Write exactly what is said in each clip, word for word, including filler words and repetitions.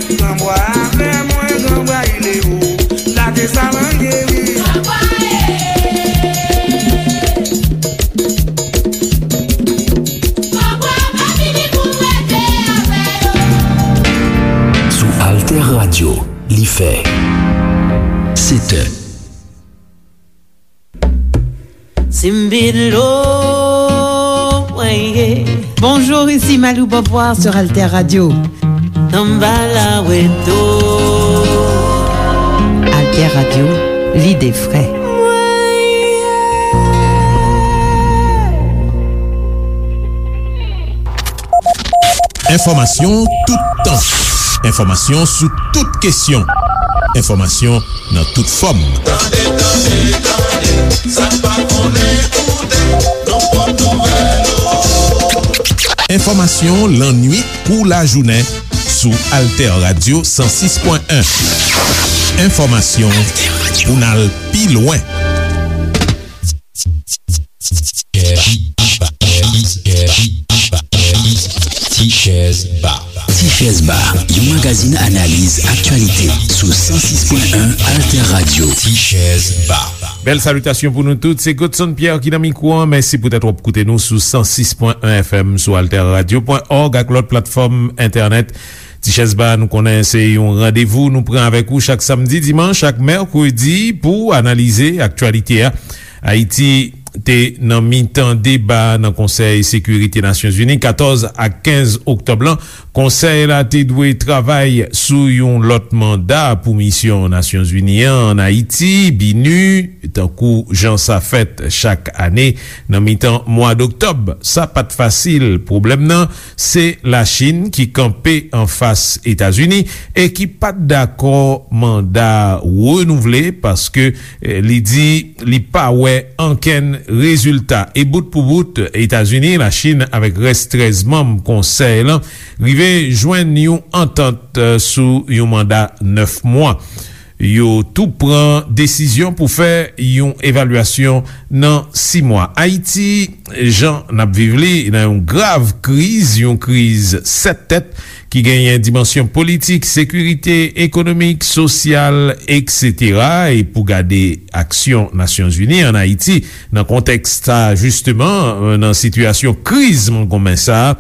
Gran bwa avè mwen, gran bwa ilero, lage sa manje wi. Sou Alter Radio, li fè sèt è. Bonjour, ici Malou Beauvoir sur Alter Radio. Alter Radio, l'idée frais. Enfòmasyon toutan. Enfòmasyon sou tout kesyon. Enfòmasyon nan tout fòm. Tande, tande, tande, sa n pa konnen koute, nan pwòp nouvèl ou. Enfòmasyon lannuit kou lajounen sou Alter Radio san sis pwen en. Enfòmasyon pou n al pi lwen. Tichèz Ba. Tichèz Ba, yon magazin analiz aktyalite sou san sis pwen en Alter Radio. Tichèz Ba. Bèl salitasyon pou nou tout. Se Godson Pierre ki nan mikwo an. Mèsi poutèt w ap koute nou sou san sis pwen en F M, sou alter radio pwen org ak lòt platfòm entènèt. Tichèz Ba, nou konnen se yon randevou nou pran avèk ou chak samdi, dimanch ak mèkredi pou analize aktyalite a. Ayiti te nan mitan deba nan Konsèy Sekirite Nasyonzini katòz ak kenz oktòb lan. Konsèy la te dwe travay sou yon lòt manda pou misyon Nasyonzini an ann Ayiti, BINUH, tankou jan sa fèt chak ane nan mitan mwa doktòb. Sa pa t fasil. Pwoblèm nan, se Lachin ki kanpe anfas Etazini e ki pa t dakò manda renouvle, paske, eh, li di li pa wè ankenn rezilta. E bout pou bout, Etazini, Lachin avèk rès trèz manm konsèy lan rive jwenn yon antant, eh, sou yon manda nèf mwa. Yo tou pran desizyon pou fè yon evalyasyon nan sis mwa. Ayiti, jan n ap viv li, nan yon grav kriz, yon kriz sèt tèt ki genyen dimansyon politik, sekirite, ekonomik, sosyal, etsetera. E pou gade aksyon Nasyonzini ann Ayiti nan kontèks sa, jisteman, nan sitiyasyon kriz mongonmen sa,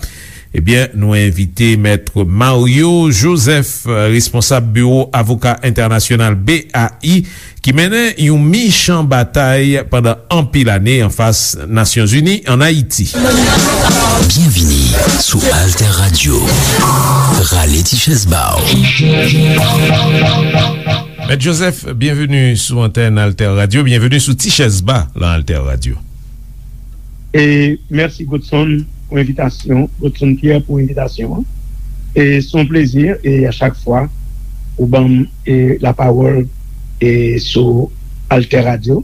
ebyen, nou envite Mèt Mario Joseph, responsab Biwo Avoka Entènasyonal, B A I, ki mennen yon michan batay pandan anpil ane anfas Nasyonzini ann Ayiti. Byenvini sou Alter Radio. Rale ti chèz ba w. Mèt Joseph, byenveni sou antèn Alter Radio, byenveni sou Ti Chèz Ba lan Alter Radio. E mèsi Godson pou envitasyon, Godson Pierre pou envitasyon an. E se yon plezi, e a chak fwa ou ban m, e, lapawòl, e, sou Alter Radio,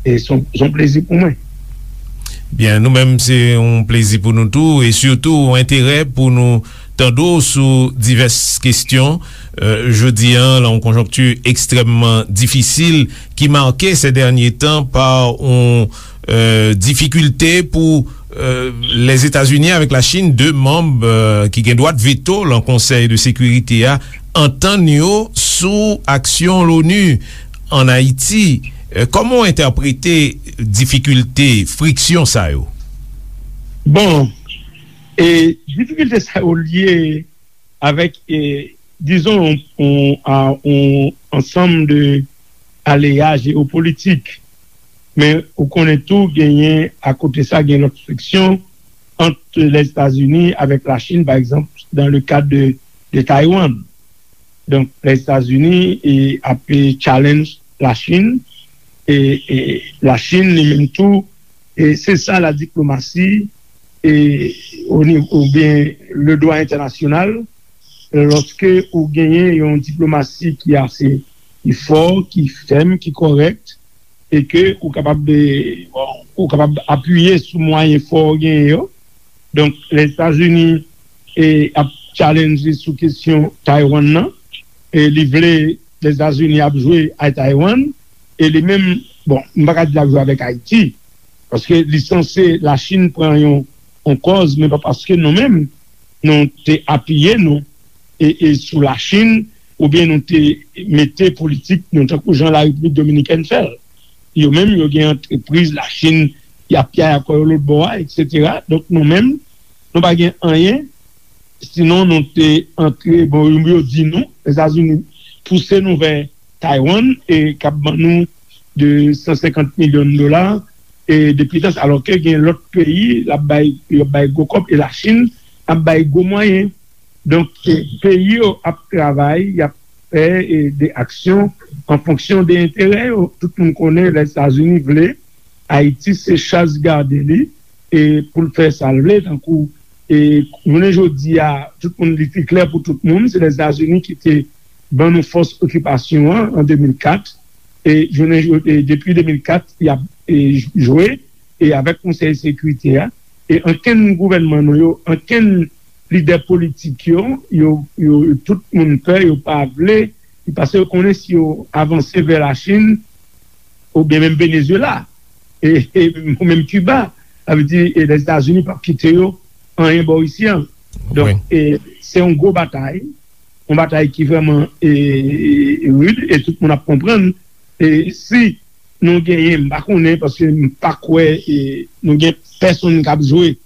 e se yon, se yon plezi pou mwen. Byen, nou menm, se yon plezi pou nou tou, e sitou yon enterè pou nou tande w sou divès kesyon, euh, jodi a, lan yon konjonkti ekstrèmman difisil ki make sè dènye tan pa yon, euh, difikilte pou, euh, Lèzetazini avèk Lachin, de manm, euh, ki gen dwa veto lan Konsèy de Sekirite a, antann yo sou aksyon Loni ann Ayiti. Euh, kòman w entèprete difikilte, friksyon sa yo? Bon, e difikilte sa yo lye avèk, e, dizon, yon, yon, a, yon ansanm de aleya jewopolitik. Men ou konnen tou, genyen, akote sa, gen lòt friksyon ant Lèzetazini avèk Lachin, pa egzanp, dans le cadre de, de Taiwan. Donk, Lèzetazini, e, ap, e, challenge Lachin, e, e Lachin, li menm tou, e se sa ladiplomasi, e, o nivo, oubyen le dwa entènasyonal, lòske ou genyen yon diplomasi ki ase, ki fò, ki fèm, ki kòrèk, e ke ou kapab, e, bon, ou kapab apiye sou mwayen fò w genyen yo. Donk, Lèzetazini, e, ap challenge sou kesyon Taiwan nan, e li vle Lèzetazini ap jwe a Taiwan, e li menm, bon, m pa ka di l ap jwe avèk Ayiti, paske li sanse Lachin pran yon, yon kòz, men pa paske nou menm, nou te apiye nou, e, e sou Lachin, oubyen nou te mete politik nou tankou jan Larepiblik Dominikèn fè l. Yo menm, yo gen antrepriz Lachin, y ap yaya kò yo lòtbò a, etsetera. Donk, nou menm, nou pa gen anyen, sinon nou te antre, bon, yo di nou, Lèzetazini pouse nou vè Taiwan, e k ap ban nou de san senkant milyon dola, e depi tan sa, alòske gen lòt peyi, l ap bay, yo ap bay gwo kòb, e Lachin ap bay gwo mwayen. Donk, e, peyi yo ap travay, y ap fè, e, de aksyon an fonksyon de enterè yo. Tout moun konnen Lèzetazini vle Ayiti se chaz gade li, e, pou l fè sa l vle, tankou, e, jounen jodi a, tout moun, li te klè pou tout moun, se Lèzetazini ki te ban nou fòs okipasyon an, an de mil kat, e, jounen jo-, e, depi de mil kat, y ap, e, jwe, e, avèk Konsèy Sekirite a, e ankenn gouvènman nou yo, ankenn lidè politik yo, yo, yo, tout moun pè, yo pa vle, paske yo konnen si yo avanse vè Lachin, oubyen menm Venezuela, e, e, ou menm Kiba, sa vle di, e, Lèzetazini p ap kite yo anyen bò isi an. Donk, e, se yon gwo batay, yon batay ki vrèman, e, e, rid, e tout moun ap konprann. E si nou genyen, m pa konnen, paske m pa kwè, e, nou gen pèsonn k ap jwe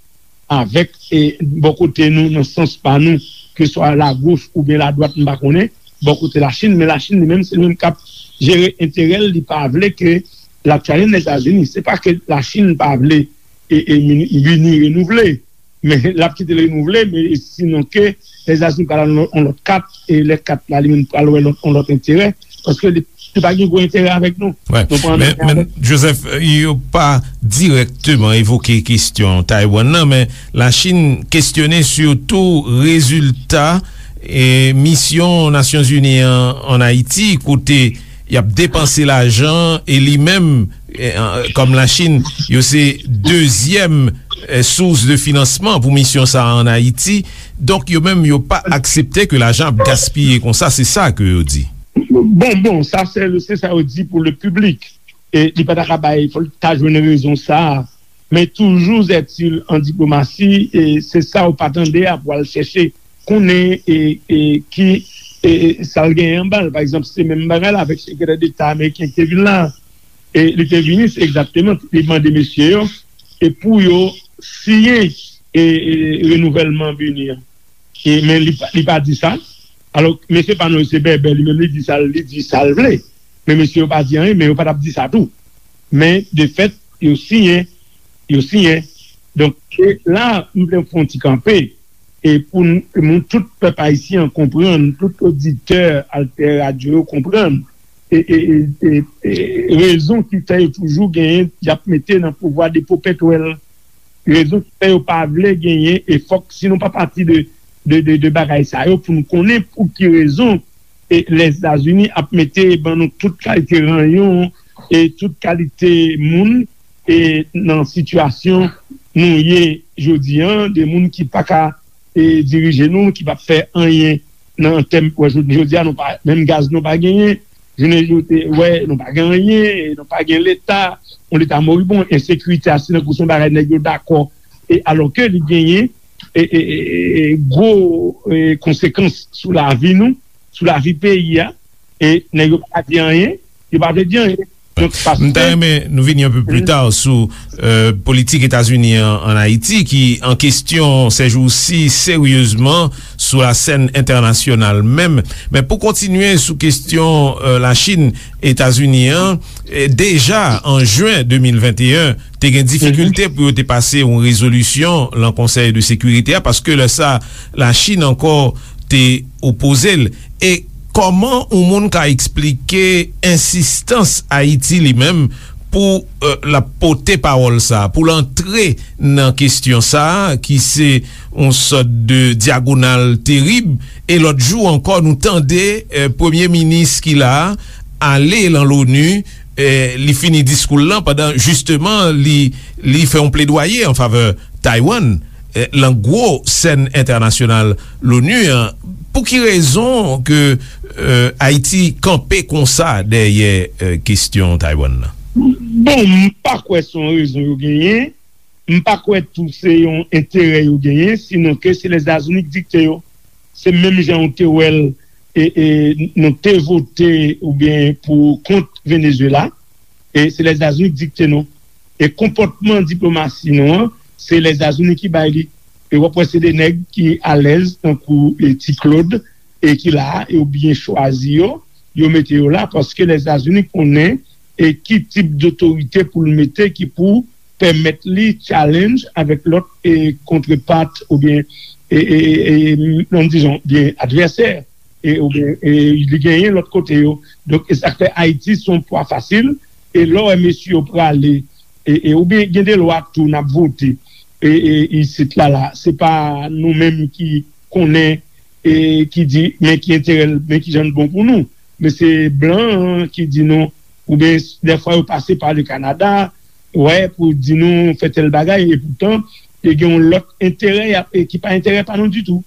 avèk, e, bò kote nou, nan sans pa nou, ke swa lagoch oubyen ladwat, m pa konnen, bò kote Lachin, men Lachin li menm, se li menm k ap jere enterè l, li pa vle ke l ap challenge Lèzetazini. Se pa ke Lachin pa vle, e, e, vini, vini renouvle, men l ap kite l renouvle, men sinon ke Lèzetazini pral nan yon lòt kat, e lè kat la, li menm pral wè lòt, yon lòt enterè, paske li, li pa gen gwo enterè avèk nou. Wè. Nou pran Men, antann men avèk Joseph, yo pa dirèkteman evoke kesyon Taiwan nan, men Lachin kesyone sitou rezilta, e, misyon Nasyonzini an ann Ayiti, kote y ap depanse lajan, e li menm, e, an, kòm Lachin, yo se dezyèm, e, sous de finansman pou misyon sa a ann Ayiti. Donk, yo menm, yo pa aksepte ke lajan ap gaspiye konsa, se sa ke yo di. Bon, bon, sa se, se sa yo di pou le piblik. E li pa ta ka bay, fò l ta jwenn rezon sa a. Men toujou, zètil an diplomasi, e se sa ou pa tande a pou al chèche konnen, e, e ki, e, e sa l genyen anba l. Pa egzanp, se menm bagay la avèk sekretè deta ameriken ki te vin la. E li te vini, se egzakteman, li mande mesye yo, e pou yo siyen, e, e renouvèlman vini an. E, men li, pa- li pa di sa. Alò, mesye pa nou, se bèbè, li menm li di sa, li di sa l vle. Men mesye yo pa di anyen, men yo pa t ap di sa tou. Men, de fèt, yo siyen, yo siyen. Donk, e la, m vle fè yon ti kanpe, e pou n- moun, tout pèp ayisyen an konprann, tout oditè Alter Radio yo konprann, e, e, e, e, e rezon ki fè yo toujou genyen, y ap mete nan pouvwa depo pètwèl. Rezon ki fè yo pa vle genyen, e fòk, si nou pa pati de, de, de, de bagay sa yo, pou nou konnen pou ki rezon, e, Lèzetazini ap mete ban nou tout kalite ranyon, e tout kalite moun, e nan sitiyasyon nou ye jodi an, de moun ki pa ka, e dirije nou, ki p ap fè anyen nan tèm, wè, jodi, jodi a, nou pa, menm gaz nou pa genyen, jounen jodi, wè, nou pa gen anyen, nou pa gen leta, yon leta moribon, ensekirite a, se tankou se yon bagay nèg yo dakò, e alòske li genyen, e, e, e, e, gwo, e, konsekans sou lavi nou, sou lavi peyi a, e nèg yo pa di anyen, yo pa vle di anyen. Donk, paske M ta renmen nou vini yon pe pli ta sou, e, politik Etazini an, ann Ayiti, ki an kesyon sèjousi seryezman sou la sèn entènasyonal menm. Men pou kontinye sou kesyon, e, Lachin, Etazini an, e, deja an jen de mil venteyen, te gen difikilte pou yo te pase yon rezolisyon lan Konsèy de Sekirite a, paske lè sa, Lachin ankò te opoze l. E kòman yon moun ka eksplike ensistans Ayiti li menm pou, e, l ap pote pawòl sa, pou l antre nan kesyon sa, ki se yon sòt de dyagonal terib? E lòt jou ankò, nou tande, e, premye minis ki la a ale lan Loni, e, li fini diskou l lan pandan, jisteman, li, li fè yon pledwaye an favè Taiwan, e, lan gwo sèn entènasyonal Loni an. Pou ki rezon ke, e, Ayiti kanpe konsa dèyè, e, kesyon Taiwan nan? Bon, m pa kwè se yon rezon yo genyen. M pa kwè tou se yon enterè yo genyen, sinon ke se Lèzetazini ki dikte yo. se menm jan ou te wè l, e, e, nou te vote oubyen pou kont Venezuela, e se Lèzetazini ki dikte nou. E konpòtman diplomasi nou an, se Lèzetazini ki bay li. E w ap wè se de nèg ki alèz, tankou, e, Ti Claude, e ki la a, e yo byen chwazi yo, yo mete yo la, paske Lèzetazini konnen, e ki tip dotorite pou l mete ki pou pèmèt li challenge avèk lòt, e, kontrepart oubyen, e, e, e, nan dizon, byen advèsè, e, oubyen, e, li genyen lòt kote yo. Donk, e sa k fè Ayiti se yon pwa fasil, e lè w wè mesye yo prale, e, e, oubyen gen de lwa tou n ap vote, e, e, isit la, la, se pa nou menm ki konnen, e, ki di, men ki enterè l, men ki jan l bon pou nou. Men se blan an ki di nou, oubyen dèfwa yo pase pa le Kanada, wè, pou di nou fè tèl bagay, e poutan, e gen yon lòt enterè, y ap, e ki pa enterè pa nou ditou.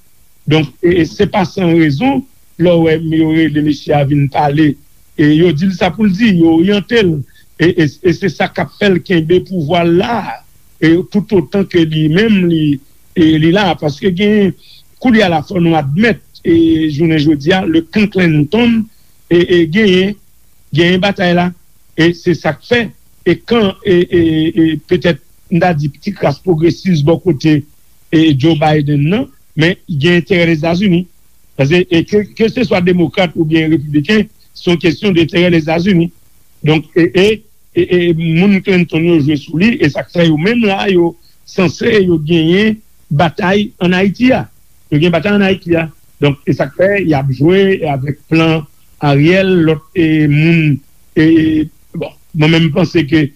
Donk, e, e se pa san rezon, lè w wè yo rele mesye a vin pale, e yo di l sa pou l di, yo oryante l, e, e, e se sa k ap fè l kenbe pouvwa l la, e toutotan ke li menm, li, e li la, paske gen, koulye a la, fò nou admèt, e jounen jodi a, le kan Clinton, e, e genyen, genyen batay la, e se sa k fè, e kan, e, e, e petèt, m ta di, ti kras pwogresis bò kote, e Joe Biden nan, men gen enterè Lèzetazini. Paske, e ke, ke se swa demokrat oubyen repibliken, se yon kesyon de enterè Lèzetazini. Donk, e, e, e, e moun Clinton yo jwe sou li, e sa k fè yo menm la, yo sanse yo genyen batay ann Ayiti a. Yo gen batay ann Ayiti a. Donk, e sa k fè y ap jwe avèk plan Ariel, lòt, e, moun, e, bon, mwen menm m panse ke,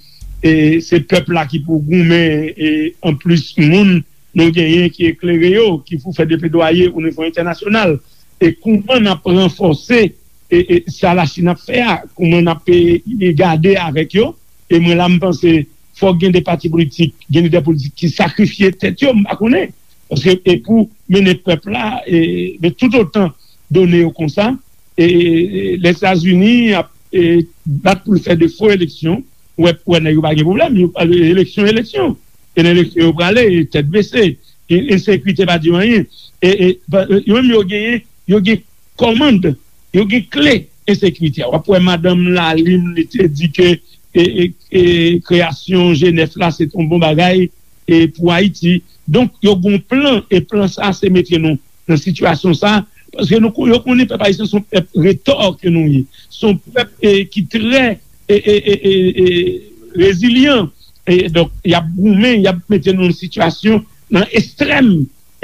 e, se pèp la ki pou goumen, e, anplis moun nou genyen ki eklere yo, ki pou fè de pledwaye o nivo entènasyonal. E kouman n ap ranfòse, e, e, sa Lachin ap fè a, kouman n ap, e, e, gade avèk yo, e mwen la m panse fòk gen de pati politik, gen lidè politik ki sakrifye tèt yo, m pa konnen. Paske, e pou mennen pèp la, e, men toutotan done yo konsa, e, e, Lèzetazini ap, e, bat pou l fè de fo eleksyon, ou wè, ou wè nèg yo pa gen pwoblèm, yo, eleksyon, eleksyon. E nan eleksyon yo prale, e tèt bese, e ensekirite pa di yo anyen. E, e, pa, yo menm yo genyen, yo gen kòmand, yo gen kle ensekirite a. W ap wè madanm Lalime, li te di ke, e, e, e, kreyasyon G nèf la, se te yon bon bagay, e, pou Ayiti. Donk, yo gen yon plan, e plan sa, se mete nou nan sitiyasyon sa, paske nou, yo konnen pèp ayisyen se yon pèp retò ke nou ye. Se yon pèp, e, ki trè, e, e, e, e, e, rezilyan. E donk, y ap goumen, y ap mete nou nan sitiyasyon, nan ekstrèm,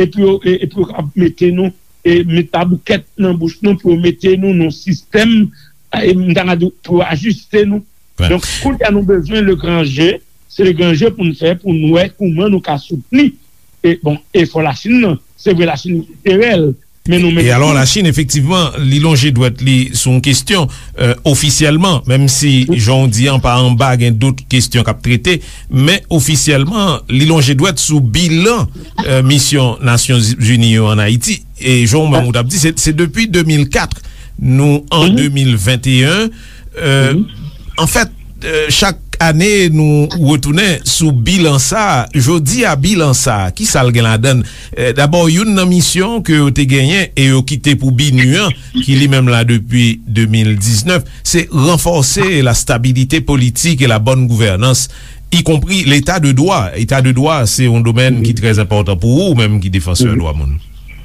epi yo, e, epi yo ap mete nou, e, met paboukèt nan bouch nou pou yo mete nou nan sistèm, e, m ta ka di, pou yo ajiste nou. Donk, kounye a nou bezwen le gran je, se le gran je pou n fè, pou n wè kouman nou ka soutni, e, bon, efò Lachin nan. Se vre, Lachin gen enterè l, men nou menm tou. E alò, Lachin, efektivman, li lonje dwèt li sou yon kesyon, e, ofisyèlman, menm si, jan w di an, pa anba, gen dòt kesyon k ap trete, men ofisyèlman, li lonje dwèt sou bilan, e, misyon Nasyonzini yo ann Ayiti. E jan w menm ou t ap di, se, se depi de mil kat, nou an de mil venteyen. E, anfèt, e, chak ane, nou retounen sou bilan sa a. Jodi a, bilan sa a, ki sa l gen ladan l? E, dabò, youn nan misyon ke yo te genyen e yo kite pou BINUH an, ki li menm la depi de mil diznèf, se ranfòse la stabilité politique et la bonne gouvernance, y compris l'état de droit. Eta de dwa, se yon domèn ki trè enpòtan pou ou, ou menm ki defansè dwa moun.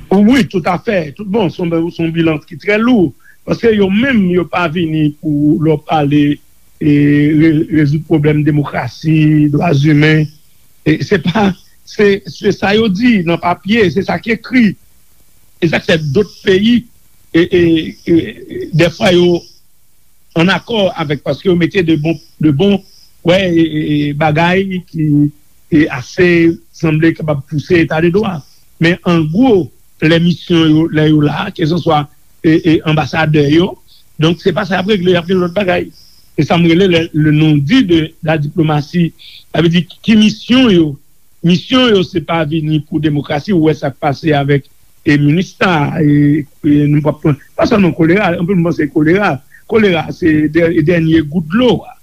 Wi, toutafè. Tout bon, se yon, se yon bilan ki trè lou. Paske yo menm, yo pa vini pou lè w pale, e, re-, rezoud pwoblèm demokrasi, dwa imen. E se pa, se, se sa yo di nan papye, se sa k ekri. E sa k fè dòt peyi, e, e, e, dèfwa yo ann akò avèk, paske yo mete de bon, de bon, wè, e, e, e, bagay ki, e, ase sanble kapab pouse eta de dwa. Men an gwo, lè misyon yo, lè yo la, kèlkanswa, e, e, anbasadè yo, donk se pa sa y ap regle, y ap gen lòt bagay. Se sa m rele le, le non-dit de la diplomatie. Sa vle di ki misyon yo, misyon yo se pa vini pou demokrasi, ou wè sa k pase avèk, e, MINUSTAH, e, e, nou p ap pran, pa sèlman kolera, anpil moun panse kolera. Kolera, se dè-, dènye gout dlo a.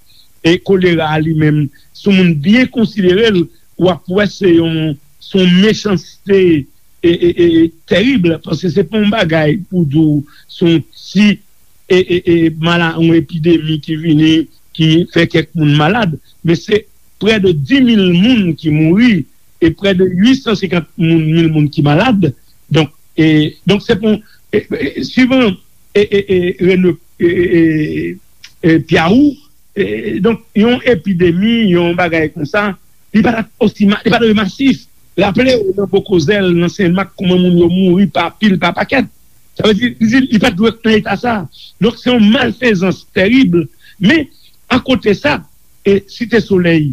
E kolera a li menm, si yon moun byen konsidere l, w ap wè se yon, se yon mechanste, e, e, e, tèrib, paske se pa yon bagay pou di w se yon ti e, e, e, mala, yon epidemi ki vini, ki fè kèk moun malad, men se prè de dis mil moun ki mouri e prè de uit san senkant moun, mil moun ki malad. Donk, e, donk se pou, e, e, suivan e, e, e, Rene, e, e, e, e, Piawou, e, donk yon epidemi, yon bagay konsa, li pa t osi ma- li pa t masif. Raple w, nan Bokozèl, nan Senmak, kòman moun yo mouri pa pil, pa pakèt. Sa vle di, li, li pa t dwe nan eta sa. Donk se yon malfezans tèrib. Men akote sa, e Site Solèy,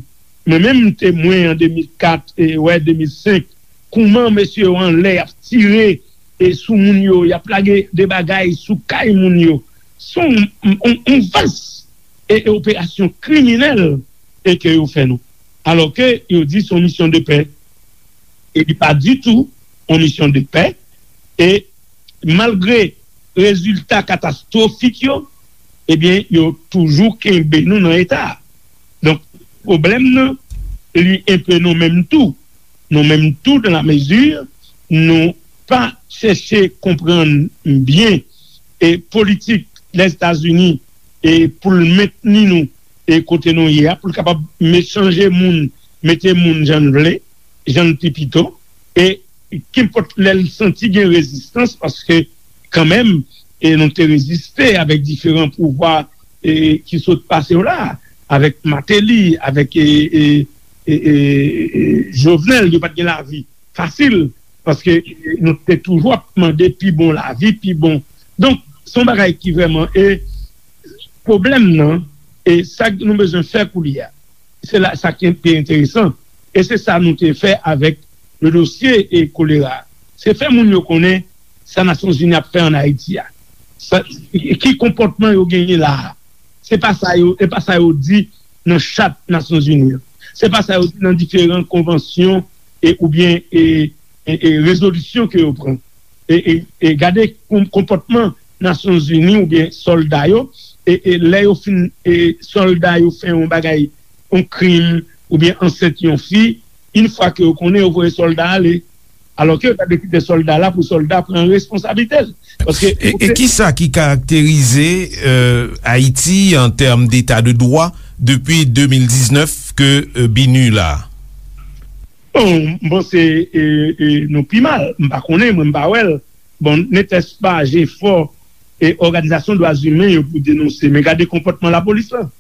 mwen menm m temwen an de mil kat, e wè, de mil senk, kòman mesye yo anlè y ap tire e sou moun yo, y ap lage de bagay sou kay moun yo. Se yon, yon, yon vas e, e operasyon kriminèl e ke yo fè nou. Alòske yo di se yon misyon de pè. E li pa ditou yon misyon de pè. E malgre rezilta katastwofik yo, ebyen, yo toujou kenbe nou nan eta a. Donk, pwoblèm nan, li enpe nou menm tou. Nou menm tou, dans la mesure nou pa chèche konprann byen e politik Lèzetazini e pou l mentni nou e kote nou ye a, pou l kapab me- chanje moun, mete moun jan l vle, jan l pi pito, e kenpòt lè l santi gen rezistans, paske kanmenm, e nou te reziste avèk diferan pouvwa e ki sot pase yo la, avèk Martelly, avèk e, e, e, e, e, Jovenel, yo pa t gen lavi fasil, paske nou te toujou ap mande pi bon lavi, pi bon. Donk, se yon bagay ki vrèman, e pwoblèm nan, e sa nou bezwen fè koulye a, se la sa ki pi enteresan. E se sa nou te fè avèk le dosye e kolera. Se fè moun yo konnen sa Nasyonzini ap fè ann Ayiti a. Sa, ki konpòtman yo genyen la a. Se pa sa yo, e pa sa yo di nan chat Nasyonzini an. Se pa sa yo di nan diferan konvansyon e, oubyen e, e, e rezolisyon ke yo pran. E, e, e gade kon- konpòtman Nasyonzini oubyen sòlda yo, e, e lè yo fin, e sòlda yo fè yon bagay, yon krim, oubyen ansent yon fi, yon fwa ke yo konnen, yo voye sòlda ale. Alòske yo ta dwe kite sòlda la pou sòlda pran responsablite l. Paske e, e ki sa ki karakterize euh, Ayiti an tèm deta de dwa depi de mil diznèf ke euh, BINUH la? Bon, m panse e, e, nou pi mal. M pa konnen, mwen m pa wè l. Bon, netèspa jefò e òganizasyon dwa imen yo pou denonse. Men gade konpòtman lapolis lan.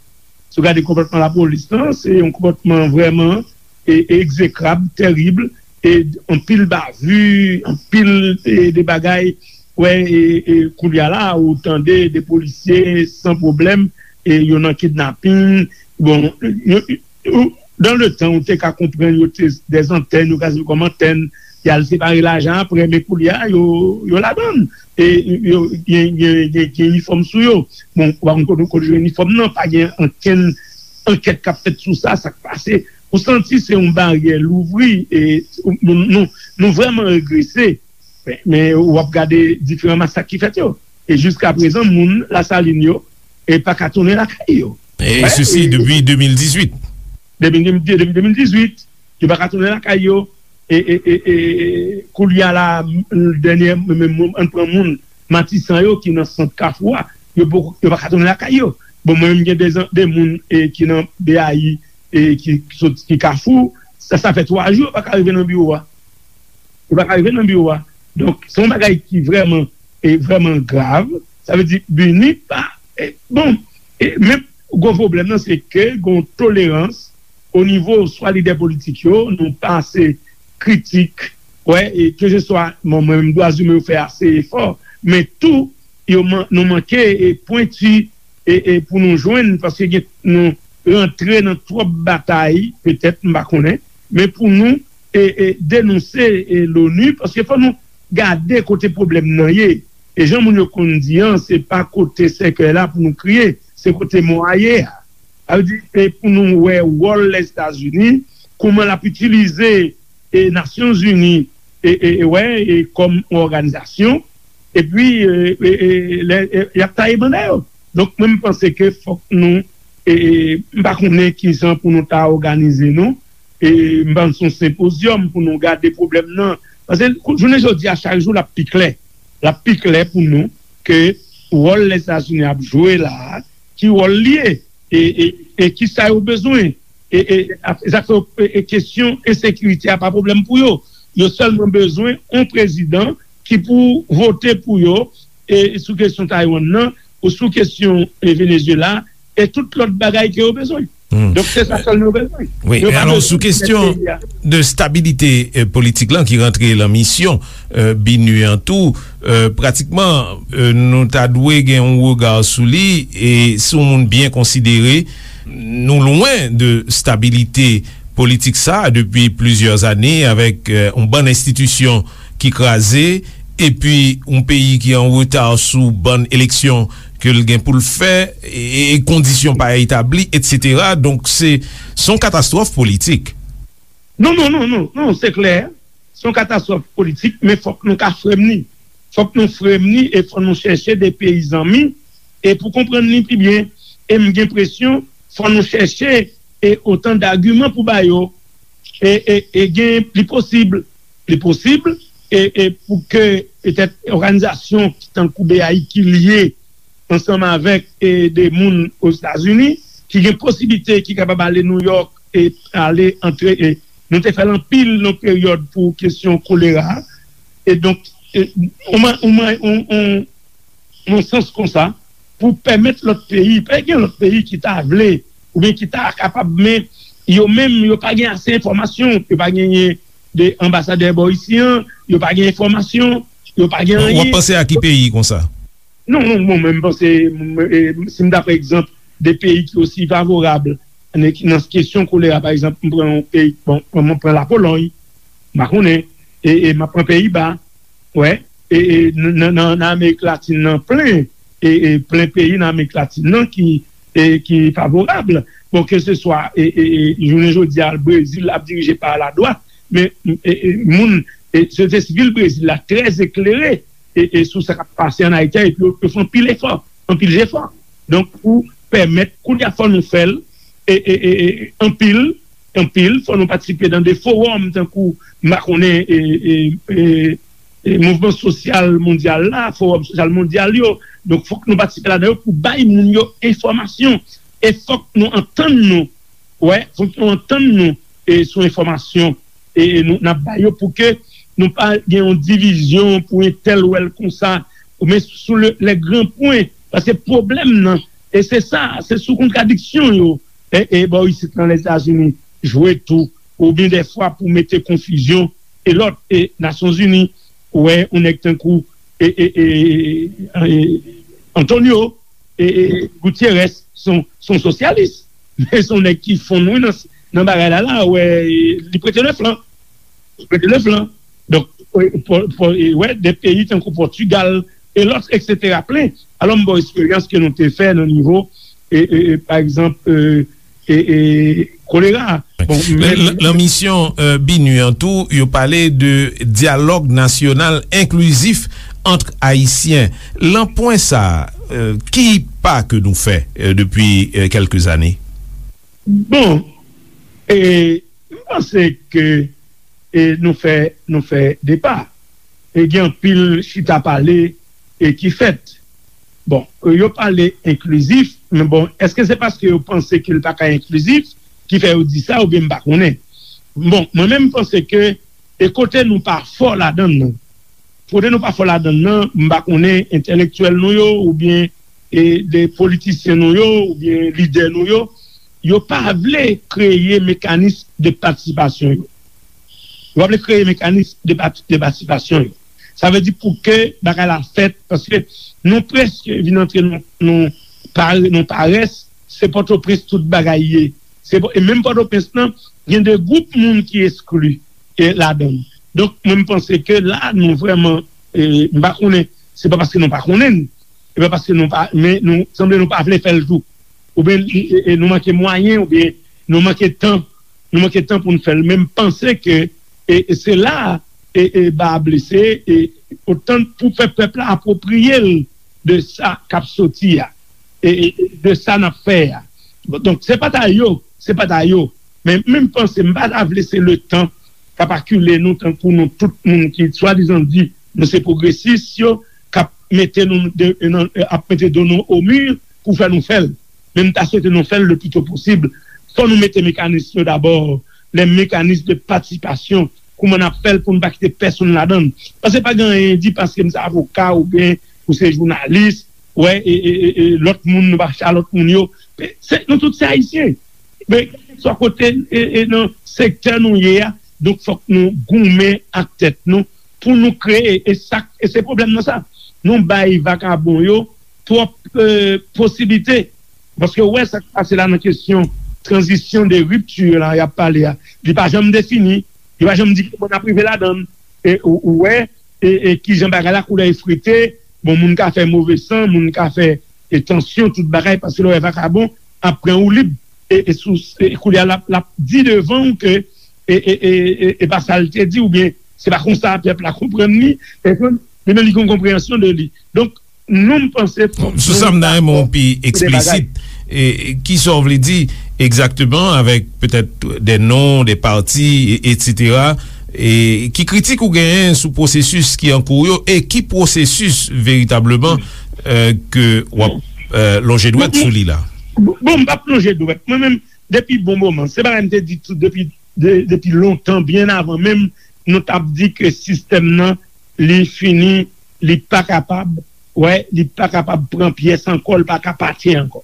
Si w gade konpòtman lapolis lan, se yon konpòtman vrèman e, e egzekrab, tèrib, e anpil bavi, anpil e, de bagay. Wè, e, e, koulye a la, ou tande de polisye san pwoblèm, e yo nan kidnaping. Bon, yo, yo, dan le tan, ou te ka konprann yo te dèzantèn, yo ka sèvi kòm antèn, y al separe lajan apre, men koulye a, yo, yo ladann. E yo gen, gen, gen, gen inifòm sou yo. Bon, ou pa konn kote, kote yo jwenn inifòm nan, pa gen ankenn ankèt k ap fèt sou sa, sa k pase. Ou santi se yon baryè louvri, e nou, nou, nou vrèman regrese. Men, men w ap gade diferan masak ki fèt yo. E jiska prezan, moun Lasalin yo e pa ka tounen lakay yo. E sesi depi de mil dizuit. Depi, depi de mil dizuit, yo pa ka tounen lakay yo. E, e, e, e koulye a la, dènye, men, men, ann pran moun Matisan yo ki nan sant Kafou a, yo poko, yo pa ka tounen lakay yo. Bon, mwen menm gen de, de moun e, ki nan B A I e ki, ki sot, ki Kafou, sa, sa fè twa jou yo pa ka rive nan biwo a. Yo pa ka rive nan biwo a. Donk, se yon bagay ki vrèman, e vrèman grav. Sa vle di, BINUH pa, e, bon, e, men gwo pwoblèm nan, se ke gon tolerans o nivo swa lidè politik yo, nou pa ase kritik, wè, e keseswa, bon, mwen menm dwa imen yo fè ase efò, men tou, yo man, nou manke e pwenti e, e pou nou jwenn, paske gen, nou rantre nan twòp batay, petèt, m pa konnen, men pou nou e, e denonse e, l'ONU, paske fò nou gade kote pwoblèm nan ye. E jan moun yo konn di an, se pa kote sèkèy la pou nou kriye, se kote mò a ye a. Sa vle di, e pou nou wè wòl Lèzetazini, kouman l ap itilize e Nasyonzini e, e, e, wè, e kòm yon òganizasyon, epi e, e, e, lè, e, y ap taye banda yo. Donk, mwen, m panse ke fòk nou, e, e, m pa konnen kijan pou nou ta òganize nou, e m panse yon senpozyòm pou nou gade pwoblèm nan Paske jounen jodi a, chak jou, l ap pi klè. L ap pi klè pou nou ke wòl Lèzetazini ap jwe la a, ki wòl li ye, e, e, e ki sa yo bezwen. E, e, e, e, kesyon ensekirite a pa pwoblèm pou yo. Yo sèlman bezwen yon prezidan ki pou vote pou yo, e, sou kesyon Taiwan nan, ou sou kesyon, e, Venezuela, e tout lòt bagay ke yo bezwen. Donk, se sa sèl nou bezwen. Wi, men alò, sou kesyon de stabilite, e, politik lan ki rantre lan misyon, e, BINUH an tou, e, pratikman, e, nou ta dwe gen yon rega sou li, e se yon moun byen konsidere. Nou lwen de stabilite politik sa a depi plizyè ane avèk, e, yon bann enstitisyon ki kraze, epi yon peyi ki an reta sou bann eleksyon ke l gen pou l fè, e, e kondisyon pa etabli, etsetera. Donk, se, se yon katastwòf politik. Non, non, non, non, non, se klè. Se yon katastwòf politik, men fòk nou ka fremni. Fòk nou fremni e fòk nou chèche de peyi zanmi e pou konprann li pi byen. E m gen enpresyon, fòk nou chèche e otan dagiman pou ba yo. E, e, e gen, li posib, li posib, e, e pou ke petèt òganizasyon tankou BAI ki lye ansanm avèk, e, de moun Ozetazini, ki gen posiblite, ki kapab ale Nouyòk e ale antre, e nou te fè l anpil nan peryòd pou kesyon kolera. E donk, e, on, on, on, on, nan sans konsa, pou pèmèt lòt peyi, pa gen lòt peyi ki ta vle, oubyen ki ta kapab, men yo menm, yo pa gen ase enfòmasyon, yo pa genyen de anbasadè bò isi an, yo pa gen enfòmasyon, yo pa gen anyen. W ap panse a ki peyi konsa? Non, non, bon, mwen, m panse, m, e, si m ta pran egzanp de peyi ki osi favorab nan, nan kesyon kolera, pa egzanp, m pran yon peyi, bon, mwen, mwen pran Lapolòy, m pa konnen, e, e m ap pran Peyiba, wè, e, e, nan, nan, nan Amerik Latin nan plen, e, e plen peyi nan Amerik Latin nan ki, e, ki favorab. Bon, ke se swa, e, e, e, jounen jodi a, Brezil ap dirije pa ladwat, men, e, e, moun, e, sosyete sivil Brezil la trè eklere, e, e, sou sa k ap pase ann Ayiti a, epi yo, yo fè anpil efò, anpil jefò. Donk, pou pèmèt, kounye a fò nou fè l, e, e, e, e, anpil, anpil, fò nou patisipe nan de fowòm, tankou, m pa konnen, e, e, e, e, mouvman sosyal mondyal la, fowòm sosyal mondyal yo. Donk, fòk nou patisipe ladan yo pou bay moun yo enfòmasyon. E fòk nou antann nou, wè, fòk nou antann nou, e, sou enfòmasyon, e, e nou, n ap bay yo pou ke nou pa gen yon divizyon pou entèl wè l konsa, ou men sou le, les grands points. Paske pwoblèm nan, e se sa, se sou kontradiksyon yo, e, e bò isit nan Lèzetazini, jwe tou, oubyen dèfwa pou mete konfizyon, e lòt, e Nasyonzini, ou wè, yon nèg tankou, e, e, e, e, Antonio, e, e, Gutierrez, se yon, se yon sosyalis. Men se yon nèg ki fonn, wi, nan, nan bagay la, la, ou wè, li prete le flan. Li prete le flan. Donk, e, pou, pou, e, wè, de peyi tankou Pòtigal, e lòt, etsetera, plen. Alò, m ba w eksperyans ke nou te fè nan nivo, e, e, e, pa egzanp, e, e, e, kolera. Bon, men, lan, lan misyon, e, BINUH an tou, yo pale de dyalòg nasyonal enklizif ant Ayisyen. Lan pwen sa a, e, ki pa ke nou fè, e, depi, e, kèlke zane? Bon, e, m panse ke, e, nou fè, nou fè de pa. E gen anpil chita pale, e, ki fèt. Bon, yo pale enklizif, men bon, èske se paske yo panse ke l pa ka enklizif ki fè yo di sa, oubyen m pa konnen? Bon, mwen menm, m panse ke, e kote nou pa fò ladan l nan, kote nou pa fò ladan l nan, m pa konnen entèlektyèl nou yo, oubyen, e, de politisyen nou yo, oubyen lidè nou yo, yo pa vle kreye mekanis de patisipasyon yo. Yo pa vle kreye mekanis de pati-, de patisipasyon yo. Sa vle di pou ke bagay la fèt, paske nou prèske vin antre nan, nan pa-, nan parès, se Pòtoprens tout bagay ye. Se Pò-, e menm Pòtoprens lan, gen de gwoup moun ki eskli, e, ladan l. Donk, mwen, m panse ke la, nou vrèman, e, m pa konnen, se pa paske nou pa konnen l, e pa paske nou pa, men nou, sanble nou pa vle fè l tou. Oubyen, e, e, nou manke mwayen, oubyen nou manke tan, nou manke tan pou n fè l. Men m panse ke, e, e se la, e, e, ba a blese, e, otan pou fè pèp la apwopriye l de sa k ap soti a, e, e, e de sa n ap fè a. Bon, donk, se pa ta yo, se pa ta yo. Men, men m panse, m pa ta vle se le tan k ap akile nou tankou nou tout moun ki swadizan di nou se pwogresis yo, k ap mete nou de, nan, ap mete do nou o mi pou fè nou fè l. Men m ta swete nou fè l le pli to posib. Fò nou mete mekanis yo dabò, les mécanismes de participation, kouman n ap fè l pou n pa kite pèsonn ladan l. Paske pa gen anyen di paske m se avoka oubyen ou se jounalis, wè, e, e, e, e lòt moun, nou pa chita lòt moun yo. Se, nou tout se Ayisyen. Men, kèlkeswa kote, e, e nan sektè nou ye a, donk fòk nou goumen ak tèt nou pou nou kreye, e sa, e se pwoblèm nan sa. Nou bay vakabon yo twòp, e, posiblite. Paske ou wè sa k pase la nan kesyon tranzisyon de ripti la y ap pale a. Li pa janm defini, li pa janm di kòman n ap rive ladan l. E ou, ou wè, e, e kijan bagay la koulè efrete, bon, moun ka fè move san, moun ka fè, e, tansyon, tout bagay, paske lè w wè vakabon ap pran ou lib, e, e sou, e koulye a l ap, l ap di devan w ke, e, e, e, e, e pa sa l te di, oubyen se pa konsa pèp la konprann li, e konn, li menm li gen yon konpreyansyon de li. Donk, nou, m panse fòk Sou sa, m ta renmen w pi eksplisit. E ki sa w vle di egzakteman avèk petèt de non, de pati, e, etsetera, e ki kritik ou genyen sou pwosesis ki an kou yo, e ki pwosesis veritableman, e, ke w ap, e, lonje dwèt sou li la? Bon, bon, m p ap lonje dwèt. Mwen menm, depi bon moman, se bagay m te di tou depi, de, depi lontan, byen avan menm nou t ap di ke sistèm nan, li fini, li pa kapab, wè, li pa kapab pran pyès ankò, li pa ka pati ankò.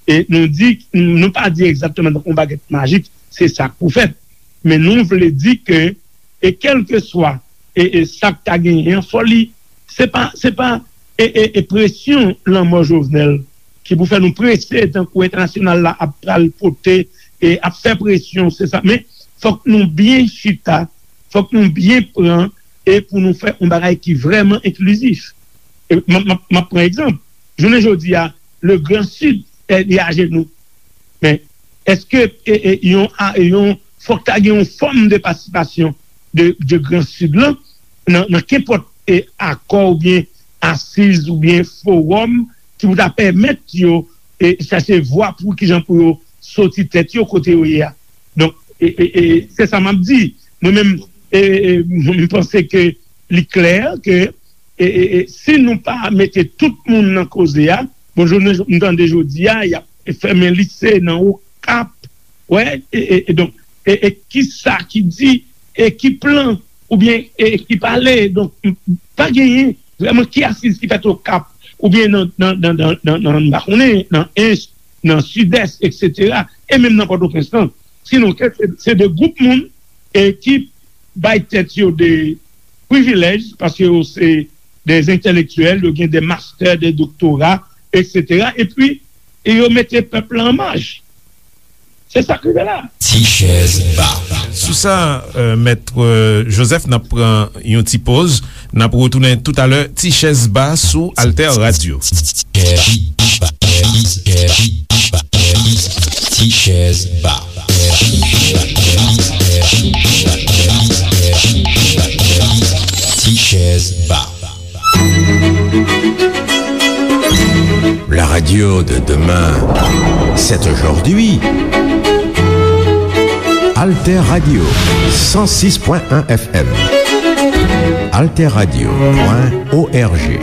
E nou di, nou pa di egzakteman tankou yon bagèt majik, se sa k pou fèt. Men nou vle di ke, e kèlkeswa, e, e sa k ta genyen an, fò li, se pa, se pa, e, e, e presyon lanmò Jovenel ki pou fè nou prese tankou entènasyonal la ap pral pote, e ap fè presyon, se sa. Men fòk nou byen chita, fòk nou byen pran, e pou nou fè yon bagay ki vrèman enklizif. E m ap, m ap, m ap pran egzanp. Jounen jodi a, le Grand Sud, e, li ajenou. Men èske, e, e, yon, a, yon, fòk ta gen yon fòm de patisipasyon de, de Grand Sud lan nan, nan kenpòt, e, akò oubyen asiz oubyen fowòm ki pou ta pèmèt yo, e, chache vwa pou kijan pou yo soti tèt yo kote yo ye a. Donk, e, e, e, se sa m ap di. Mwen menm, e, e, e, m panse ke li klè ke, e, e, e, si nou pa mete tout moun nan koze a, bon, jounen, m tande jodi a, y ap fèmen lise nan Okap, wè, e, e, e donk, e, e ki sa ki di, e ki plan, oubyen, e ki pale, donk, m, pa genyen vrèman ki asiz ki fèt Okap, oubyen nan, nan, nan, nan, nan, nan, m pa konnen, nan Ench, nan Sidès, etsetera, e menm nan Pòtoprens lan. Sinon, ke se, se de gwoup moun, e ki bay tèt yo de privilèj, paske yo se de entèlektyèl, yo gen de mastè, de doktora, etsetera, epi, e yo mete pèp la an maj. Se sa k rive la. Ti chèz ba. Sou sa, euh, Mèt, euh, Joseph, n ap pran yon ti poz. N ap retounen toutalè, Ti chèz ba sou Alter Radio. Ti chèz ba. Ti chèz ba. La radio de demain, c'est aujourd'hui. Alter Radio, cent six point un F M. Alter Radio point O R G.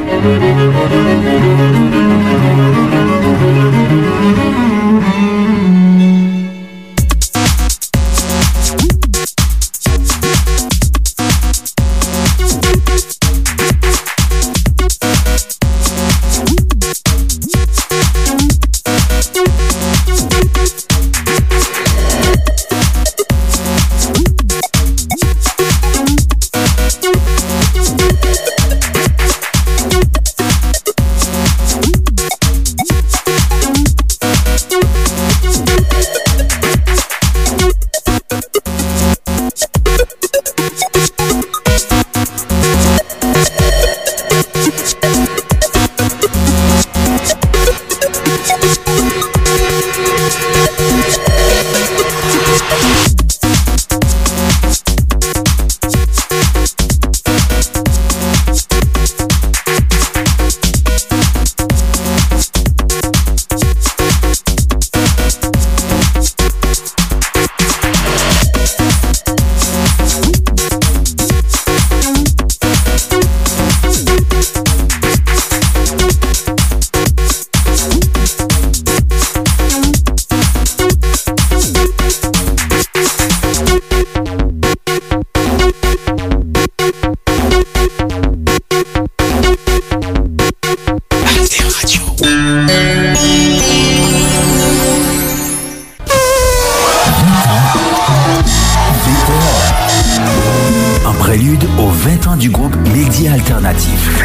Alternatif.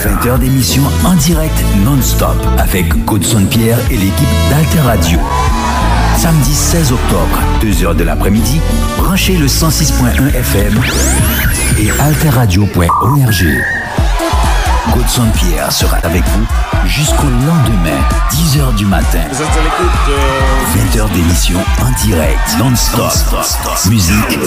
Vingt heures d'émission en direct non-stop avec Godson Pierre et l'équipe d'Alter Radio. Samedi seize octobre, deux heures de l'après-midi, branchez le cent six point un F M et alterradio point org. Godson Pierre sera avec vous jusqu'au lendemain, dix heures du matin. Vous êtes à l'écoute de vingt heures d'émission en direct, non-stop. Musique.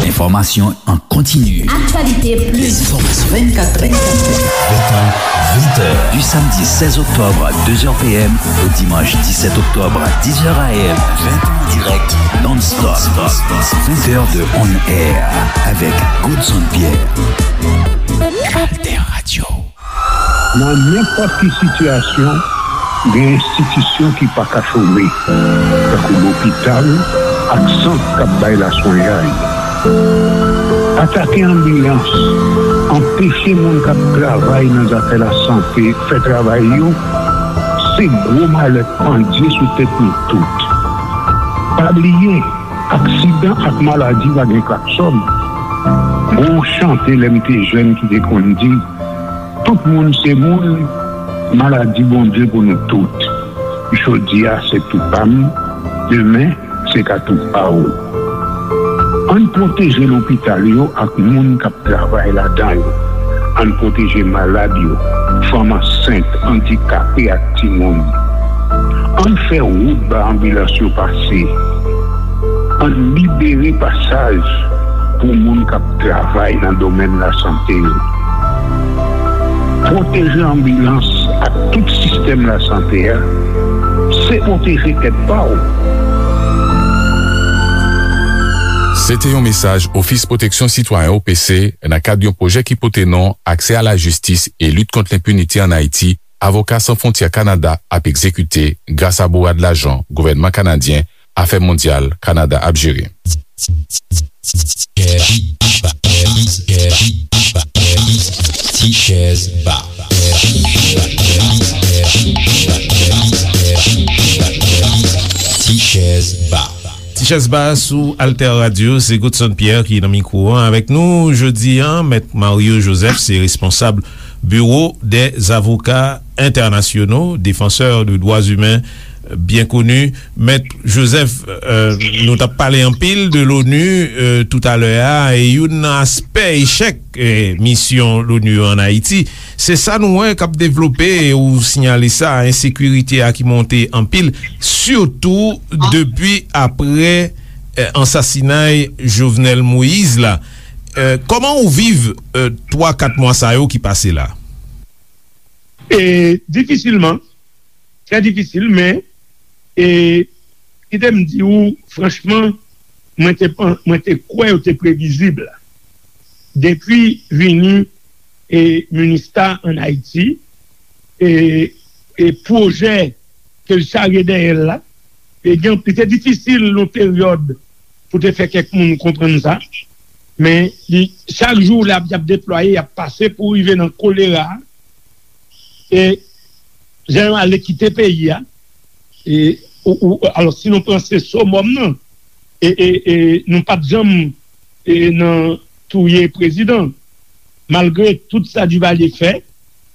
Enfòmasyon an kontini. Actualité plus. Enfòmasyon vennkat, vennkat, vennkat. Vingt ans, vingt heures. Du samedi seize octobre à deux heures P M au dimanche dix-sept octobre à dix heures A M. Vingt ans en direct, non-stop. Vingt heures de on air avec Godson Pierre. Alter Radio. Nan nenpòt ki sitiyasyon, gen enstitisyon ki pa ka chome, tankou lopital ak sant k ap bay laswenyay. Atake anbilans, anpeche moun k ap travay nan zafè lasante fè travay yo, se gwo malè k pandye sou tèt nou tout. Pa bliye, aksidan ak maladi pa gen klaksòn. Gon chante lè m te jèn ki te konn di, tout moun se moun, maladi Bondye pou nou tout. Jodi a se tou pa m, demen se ka tou pa w. Ann pwoteje lopital yo ak moun k ap travay ladan yo. Ann pwoteje malad yo, fanm ansent, andikape ak timoun. Ann fè wout ba anbilans yo pase. Ann libere pasaj pou moun k ap travay nan domèn lasante yo. Pwoteje anbilans ak tout sistèm lasante a, se pwoteje tèt pa w. Se te yon mesaj Ofis Pwoteksyon Sitwayen O P C nan kad yon pwojè ki pote non Aksè a la jistis e lit kont lenpinite ann Ayiti, Avoka San Fwontyè Kanada ap egzekite gras a bourad lajan gouvènman kanadyen Afè Mondyal Kanada ap jere. Ti chèz ba. Ti chèz ba. Ti chèz ba sou Alter Radio, se Godson Pierre ki nan mikwo an avèk nou jodi a. Mèt Mario Joseph se responsab Bureau des Avocats Internationaux, défenseur de droits humains, byen koni. Mèt Joseph, euh, nou t ap pale anpil de l'ONU, euh, toutalè a, e youn nan aspè echèk, eh, misyon l'ONU an Ayiti, se sa nou wè k ap devlope, e ou siyale sa, ensekirite a ki monte anpil, sitou depi aprè, eh, ansasinay Jovenel Moïse la. Eh, kòman ou viv, eh, twa, kat mwa sa yo ki pase la? E, difisilman, trè difisil, men, e, kite m di w, franchman, mwen te pan-, mwen te kwè yo te previzib. Depi vini, e, Minista ann Ayiti, e, e pwojè ke l charye dèyè l la, e gen, li te difisil yon peryòd pou te fè kèk moun konprann sa, men li, chak jou l ap, y ap deplwaye, y ap pase pou rive nan kolera, e jan yo ale kite peyi a, e, ou, ou, alò, si nou pran se somòm nan, e, e, e nou pa t janm, e, nan touye prezidan, malgre tout sa Duvalier fè,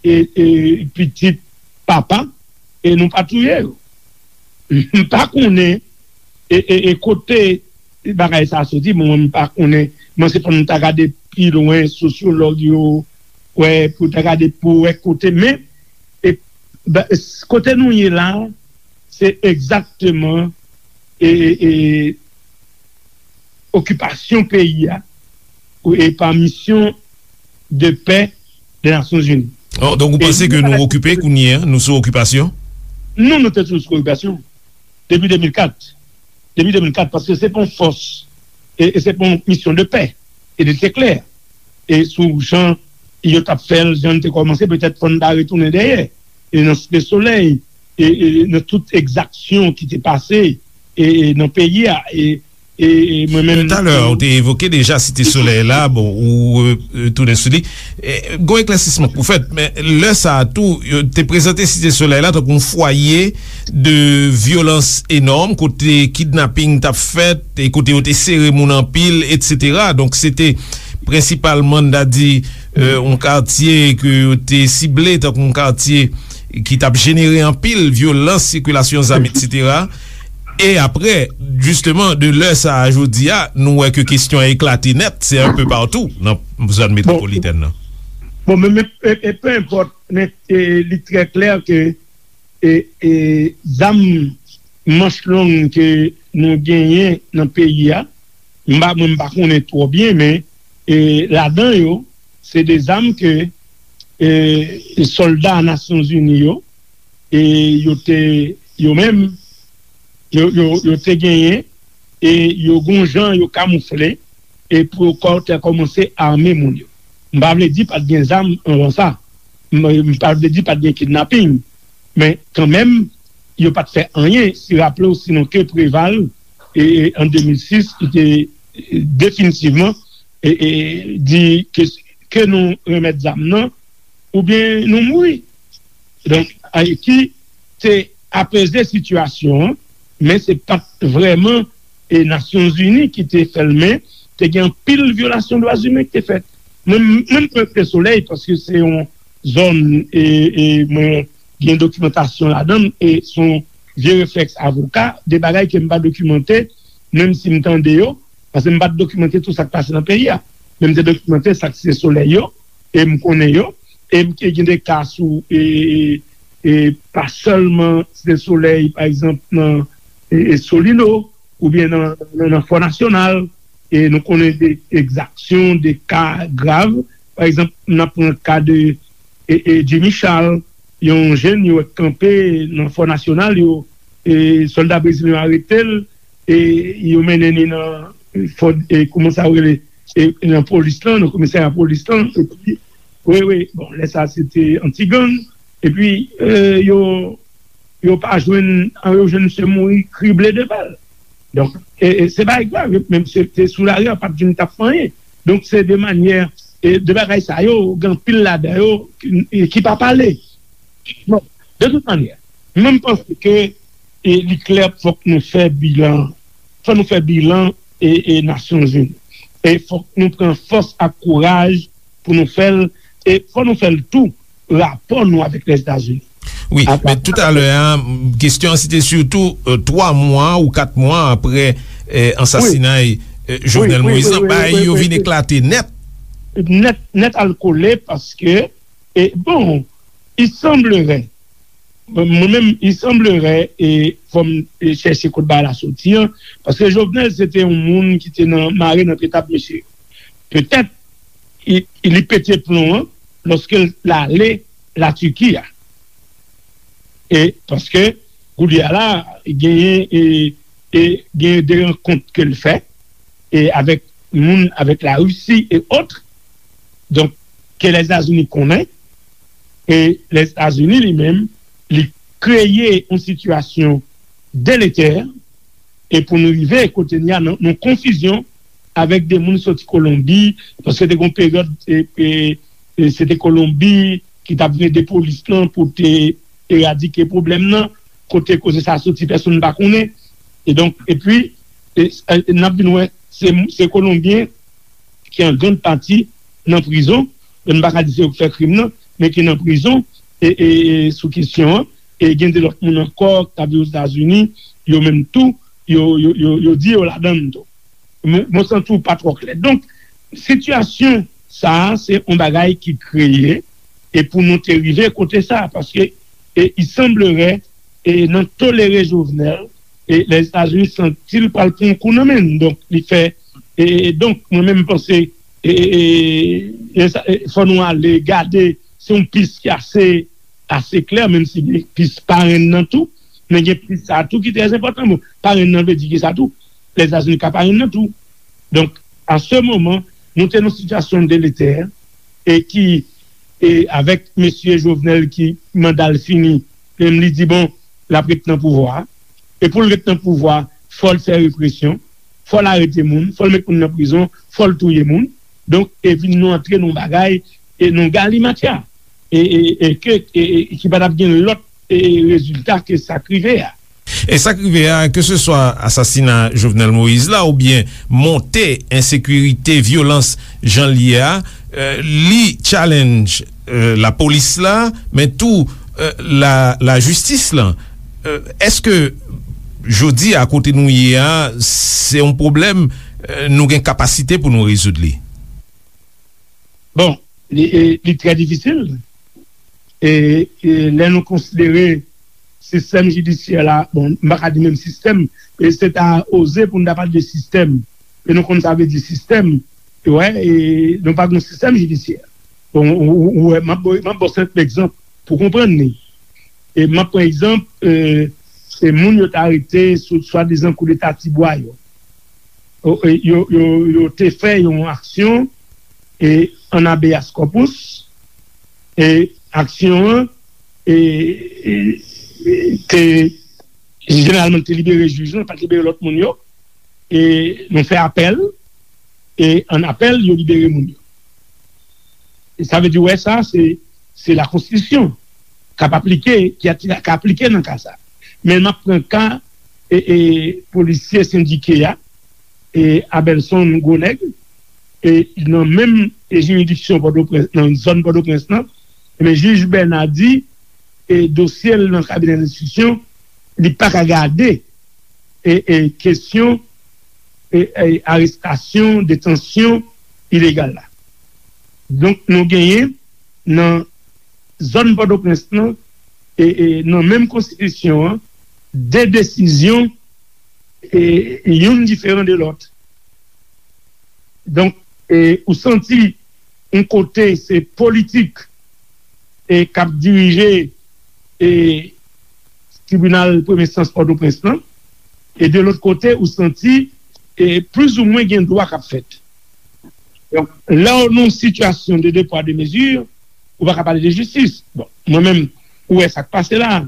e, e pitit papa, e nou pa touye yo. M pa konnen, e, e, e kote bagay sa a soti, bon, mwen, m pa konnen, mwen, se fò n ta gade pi lwen, sosyològ yo, wè, pou ta gade, pou wè kote, men, e, ba, s-, kote nou ye la, se egzakteman, e, e, e, okipasyon peyi a, e pa misyon de pè de Nasyonzini. Oh, donk, ou panse ke nou okipe kounye a, nou sou okipasyon? Non, nou te sou okipasyon. Depi de mil kat. Depi de mil kat, paske se pa yon fòs, e, e se pa yon misyon de pè. E li te klè. E sou jan yo t ap fè l, jan l te kòmanse, petèt fò n ta retounen dèyè. E nan Site Solèy, e, e nan tout egzaksyon ki te pase, e, e nan peyi a, e E, e mwen menm. Talè, ou te evoke deja Site Solèy la, bon, ou e, tounen sou li. E, gon eklèsisman k pou fèt, men lè sa a tou, yo te prezante Site Solèy la tankou yon fwaye de vyolans enòm, kote kidnaping t ap fèt, e kote yo te sere moun anpil, etsetera. Donk, se te prensipalman, n ta di, e, yon katye ke yo te sible tankou yon katye ki t ap jenere anpil vyolans, sikilasyon zam, etsetera. E apre, jisteman, de lè sa a jodi a, nou wè ke kesyon an eklate nèt, se un peu partout nan zòn metwopolitèn nan. Bon, men, men, e, e, peu importe, men, e, li trè klè ke, e, e, zam manch long ke nou genyen nan peyi a, m pa, mwen, m pa konnen twò byen, men, e, ladan yo, se de zam ke, e, sòlda Nasyonzini yo, e yo te, yo menm, yo, yo, yo te genyen, e yo gon jan yo kamoufle, e pou yo kò-, te kòmanse ame moun yo. M pa vle di pa t gen zam anvan sa. M, m pa vle di pa t gen kidnaping. Men kanmenm, yo pa t fè anyen. Si raple w, sinon ke Preval, e, e, an de mil sis, ki te, e, definitivman, e, e, di ke, ke nou renmèt zam nan, oubyen nou mouri. Donk, Ayiti te apeze sitiyasyon an, men se pa t vrèman, e, Nasyonzini ki te fè l, men te gen anpil vyolasyon dwa imen ki te fèt. Mwen, mwen, m rete Solèy paske se yon zòn, e, e mwen gen dokimantasyon ladan l, e se yon vye reflèks avoka, de bagay ke m pa dokimante, menm si m tande yo, paske m pa t dokimante tout sa k pase nan peyi a. Men m te dokimante sa k se Solèy yo, e m konnen yo, e m te gen de ka sou, e, e, e pa sèlman Site Solèy, pa egzanp, nan, e, e Solino, oubyen nan, nan, nan Fò Nasyonal, e nou konnen de egzaksyon, de ka grav. Pa egzanp, n ap pran ka de, e, e Jimmy Charles, yon jèn yo wè kanpe nan Fò Nasyonal, yo, e, sòlda brezilyen yo arete l, e yo mennen li nan, e, fò, e, kòman sa yo rele, e, nan polis lan, nan komisarya polis lan, epi, wi, wi, bon, lè sa se te anti-gang, epi, e, yo, yo pa jwenn, yo jwenn misye mouri krible de bal. Donk, e, e, se bagay grav, menm se te sou lari a, pa t vin t ap fè anyen. Donk, se de manyè, e, de bagay sa yo, gen anpil ladan yo ki, e, ki pa pale. Bon, de tout manyè, mwen, m panse ke, e, li klè, fòk nou fè bilan, fòk nou fè bilan, e, e Nasyonzini. E fòk nou pran fòs ak kouraj pou nou fè l, e fòk nou fè l tou, rapò nou avèk Lèzetazini. Wi, men toutalè a, kesyon an, se te sitou, e, twa mwa ou kat mwa apre, e, ansasinay, e, Jovenel Moïse lan, bagay yo vin eklate nèt. Nèt, nèt al kole, paske, e, bon, il semblerait, mwen menm, il semblerait, e fò m, e, chèche kot bagay la soti an, paske Jovenel se te yon moun ki te nan, mare nan pye tab mesye yo. Petèt, li, li pete plon an lòske l ale Latiki a. E paske, kounye a la, genyen, e, e genyen de rankont ke l fè, e avèk moun, avèk Larisi e ot. Donk, ke Lèzetazini konnen, e Lèzetazini li menm, li kreye yon sitiyasyon deletè, e pou nou rive kote n ye a, nan, nan konfizyon avèk de moun soti Kolonbi, paske te gen yon peryòd, e, e, e se te Kolonbi ki t ap vle de polis lan pou te eradike pwoblèm nan, kote koze sa soti, pèsonn pa konnen. E donk, epi, e, e, n ap vin wè, se, se Kolonbyen ki an grann pati nan prizon, men m pa ka di se yo k fè krim nan, men ki nan prizon, e, e, e sou kesyon an, e gen de lòt moun ankò k ap viv Ozetazini, yo menm tou, yo, yo, yo, yo di yo ladan l tou. Mwen, mwen santi w pa twò klè. Donk, sitiyasyon sa a, se yon bagay ki kreye, e pou nou te rive kote sa a, paske, e, il semblerait, e, nan tolere Jovenel, e, Lèzetazini santi l pral pran yon kou nan men l. Donk, li fè, e, donk, mwen menm, m panse, e, e, e, e sa, e, fò nou ale gade, se yon pis ki ase, ase klè, menm si gen pis parenn nan tou, men gen pis sa tou ki trè enpòtan. Bon, parenn nan vle di ki sa tou? Lèzetazini ka parenn nan tou. Donk, a se moman, nou te nan sitiyasyon deletè, e ki, e avèk mesye Jovenel ki manda l fini, menm li di, bon, l ap ret nan pouvwa a. E pou l ret nan pouvwa a, fò l fè represyon. fò l arete moun, fò l met moun nan prizon, fò l touye moun. Donk, e vin nou antre nan bagay, e nan galimatya. E, e, e ke, e, e, ki pa t ap gen lòt, e, rezilta ke sa k rive a. E sa k rive a, keseswa asasina Jovenel Moïse la, oubyen monte ensekirite, vyolans jan l ye a, e, li challenge, e, lapolis la, men tou, e, la, lajistis lan. E, èske jodi a, kote nou ye a, se yon pwoblèm, e, nou gen kapasite pou nou rezoud li? Bon, li, e, li trè difisil. E, e lè nou konsidere sistèm jidisyè la, bon, m pa ka di menm sistèm, e se ta oze pou n ta pale de sistèm. E nou konn sa vle di sistèm, e wè, e nou pa gen sistèm jidisyè. Bon, ou, ou, ou wè, m ap ba, m ap ba w senp egzanp pou konprann li. E m ap pran egzanp, e, se moun yo t arete sou swadizan koudeta Tibwa yo. O, e, yo, yo, yo te fè yon aksyon, e, an habeas corpus, e aksyon an, e, e, e, te, jeneralman, te libere jij lan, pa t libere lòt moun yo. E nou fè apèl, e an apèl, yo libere moun yo. E sa vle di, wè, sa, se, se lakonstitisyon k ap aplike, ki a, k aplike nan ka sa. Men m ap pran ka, e, e, polisye sendike a, e, Abelson Gwonèg, e, nan menm, e, jiridiksyon Pòtoprens, nan zòn Pòtoprens lan, men jij Bèna di, e, dosye l nan kabinè lenstriksyon, li pa ka gade, e, e, kesyon, e, e, arestasyon, detansyon ilegal la. Donk, nou genyen nan zòn Pòtoprens lan, e, e, nan menm konstitisyon an, de desizyon, e, youn diferan de lòt. Donk, e, ou santi yon kote se politik, e, k ap dirije, e, tribinal premye enstans Pòtoprens lan, e de lòt kote, ou santi, e, plizoumwen gen dwa k ap fèt. Donk, lè w nan yon sitiyasyon de de pwa de mezi, ou pa ka pale de jistis. Bon, mwen menm, ou wè sa k pase la.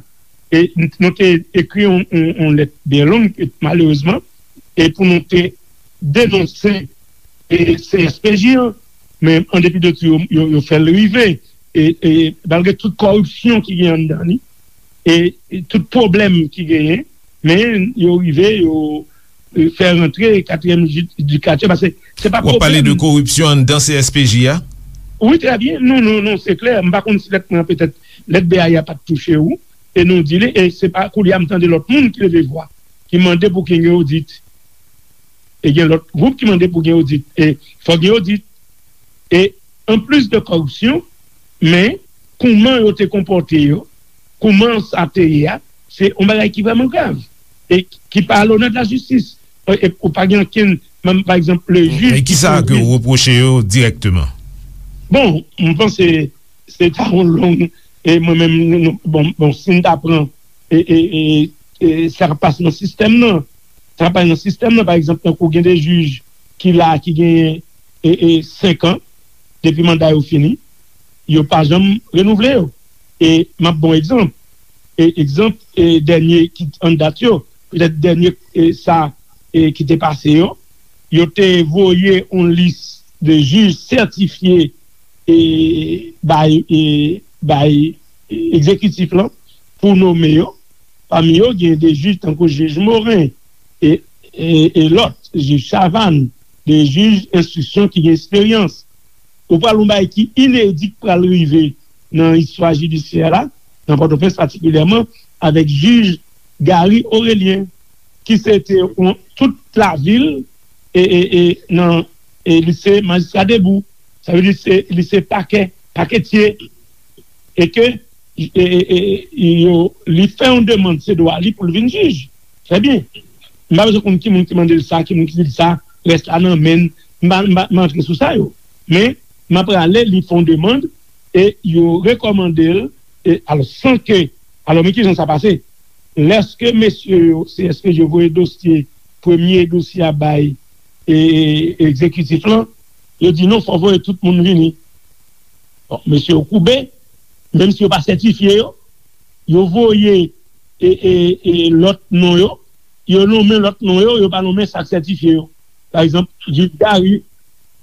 E n-, nou te ekri yon, yon, yon lèt byen long, e malerezman, e pou nou te denonse, e, C S P J an, men an depi de tou, yo, yo, yo fè l rive. E, e malgre tout kòripsyon ki gen anndan li, e, e tout pwoblèm ki genyen, men yo rive, yo, e, fè rantre katriyèm jidikatè, paske se pa pwoblèm. W ap pale de kòripsyon anndan C S P J a? Wi, trè byen. Non, non, non, se klè. M pa konn si lèt mwen an, petèt, lèt B A I a pa t touche ou, e nou di li, e se pa koulye a m tande lòt moun ki leve vwa, ki mande pou gen yon odit. E gen lòt gwoup ki mande pou gen odit. E fòk gen odit. E anplis de kòripsyon, men kouman yo te konpòte yo, kouman sa te ye a, se yon bagay ki vrèman grav. E ki pa a lonè de la jistis. E, e ou pa gen ankenn, menm, pa egzanp, le jij. E ki sa ke w repwoche yo dirèkteman? Bon, m panse se ta yon long, e mwen menm, nou, nou, bon, bon, si n ta pran, e, e, e, e sa k ap pase nan sistèm nan, sa k ap pase nan sistèm nan, pa egzanp, tankou gen de jij ki la, ki genyen, e, e, senk an, depi manda yo fini, yo pa janm renouvle yo. E m ap ba w egzanp. E egzanp, e dènye ki an dat yo, petèt dènye, e sa, e ki te pase yo, yo te voye yon lis de jij sètifye, e bay, e bay egzekitif lan pou nonmen yo. Pami yo, gen de jij tankou jij Morin e, e, e lòt, jij Chavannes, de jij enstriksyon ki gen esperyans. Ou pral yon bagay ki inedi k pral rive nan istwa jidisyè la, nan Pòtoprens patikilyèman, avèk jij Gary Aurelien, ki se te yon, tout lavil, e, e, e, nan, e, li se majistra debou. Sa vle di se, li se pakè, paketye. E ke, e, e, e, yo, li fè yon demann, se dwa li pou l vin jij. Trè byen. M pa bezwen konn ki moun ki mande l sa, ki moun ki di l sa, rès la nan men l. M pa, m pa, m pa antre sou sa yo. Men, m ap rale, li fè yon demann, e yo rekòmande l, e, alò, san ke, alò, men kijan sa pase? Lèske mesye yo, C S P J yo voye dosye, premye dosye a bay, e, e, egzekitif lan, yo di non, fò voye tout moun vini. Bon, mesye yo koube, menm si yo pa sètifye yo, yo voye, e, e, e, lòt non yo, yo nonmen lòt non yo, yo pa nonmen sa k sètifye yo. Pa egzanp, jij Gary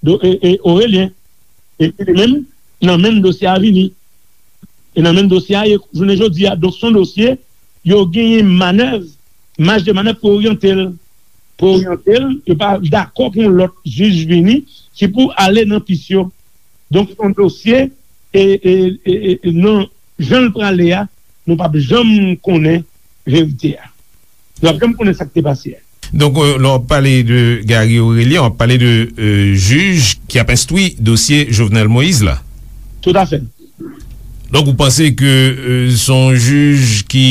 do, e, e, Orelyen, epi li menm, nan menm dosye a vini. E nan menm dosye a, e jounen jodi a, donk se yon dosye, yo genyen manèv, maj de manèv pou oryante l. Pou oryante l, yo pa dakò pou yon lòt jij vini ki pou ale nan pis yo. Donk, se yon dosye, e, e, e, e, e nan jan l prale a, nou p ap janm konnen verite a. Nou p ap janm konnen sa k te pase a. Donk, euh, lè w ap pale de Gary Orelien, w ap pale de, euh, jij ki ap enstwi dosye Jovenel Moïse la. Toutafè. Donk, ou panse ke, euh, se yon jij ki,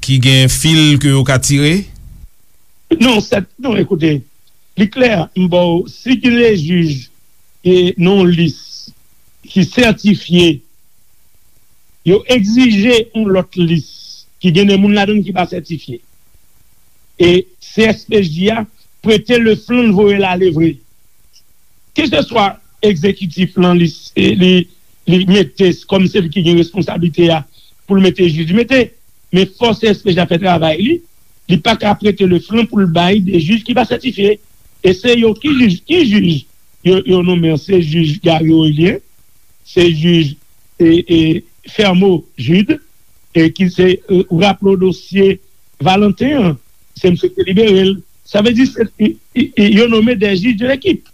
ki gen fil ke yo ka tire? Non, sèt, non, ekoute, li klè, m ba w, si gen de jij e nan yon lis ki sètifye, yo egzije yon lòt lis ki gen de moun ladan l ki pa sètifye. E C S P J a prete le flanc, l voye l ale vre. Keseswa egzekitif lan, li, li, li mete kòm se li ki gen responsablite a pou l mete jij, li mete. Men fò C S P J a fè travay li, li pa ka prete le flanc pou l bay de jij ki pa sètifye. E se yo ki jij, ki jij yo, yo nonmen an, se jij Gary Orelien, se jij, e, e, Fermo Jude, e ki se, e, ou raple w dosye Valentin an, se misye ki te libere l. Sa vle di, se, i, i, i, yo nonmen de jij de lekip.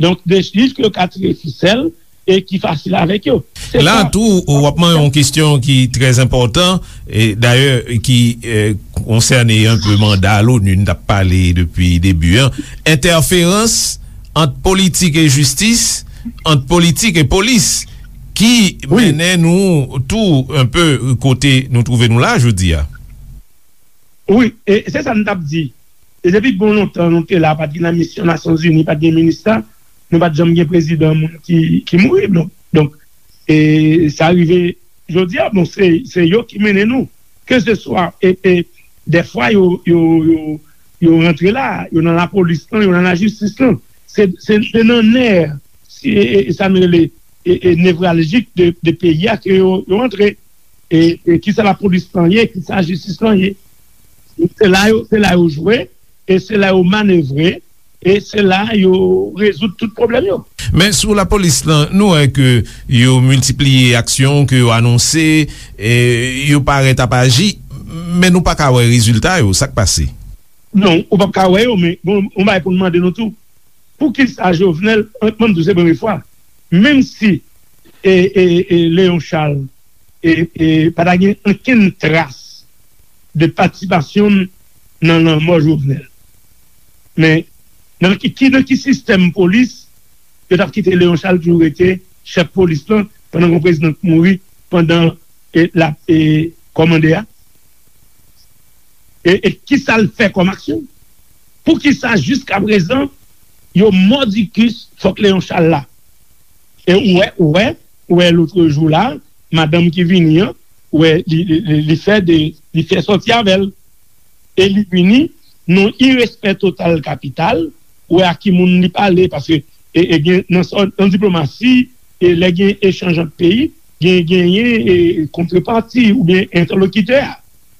Donk, de jij ke yo ka tire fisèl e ki fasil avèk yo. Se La sa. tou, w ap mande yon kesyon ki trè enpòtan, e dayè, ki, e, konsène yon pe manda l'ONU, n t ap pale depi debi an. Entèferans ant politik e jistis, ant politik e polis, ki Wi. mennen nou tou yon pe kote nou twouve nou la jodi a. Wi, e se sa n t ap di. E depi bon lontan nou te la, pa t gen la misyon Nasyonzini, pa t gen minista, nou pa t janm gen prezidan moun ki, ki mouri. Donk, donk, e sa rive jodi a, bon, se, se yo ki mennen nou. Keseswa, e, e, dèfwa yo, yo, yo, yo rantre la, yo nan lapolis lan, yo nan lajistis lan. Se, se, se nan nè, si, e, e, sa nou rele, e, e, nevraljik de, de peyi a ke yo, yo rantre. E, e kisa lapolis lan ye, kisa jistis lan ye. Se la yo, se la yo jwe, e se la yo manevre, e se la yo rezoud tout pwoblèm yo. Men sou lapolis lan, nou wè ke yo miltipliye aksyon, ke yo anonse, e yo parèt ap aji, men nou pa ka wè rezilta yo, sa k pase? Non, ou p ap ka wè yo, men bon, yon bagay pou n mande nou tou. Poukisa Jovenel, an, mwen m di w se premye fwa, menm si, e, e, e, Léon Charles, e, e, pa ta gen okenn tras de patisipasyon l nan lanmò Jovenel. Men, nan ki, ki, nan ki sistèm polis yo t ap kite Léon Charles toujou rete chèf polis lan pandan yon prezidan k mouri, pandan, e, l ap, e, kòmande a? E, e kisa l fè kòm aksyon? Poukisa jiskaprezan yo mòdikis fòk Léon Charles la? E ou wè, ou wè, ou wè lotrejou la, madanm ki vini an, ou wè li, li, li, li fè de, li fè sòti avè l. E li vini, nan irespè total kapital, ou wè a ki moun li pale, paske, e, e gen, nan, nan diplomasi, e lè gen echanj ant peyi, gen, genyen, e, kontrepati oubyen entèlokitè a.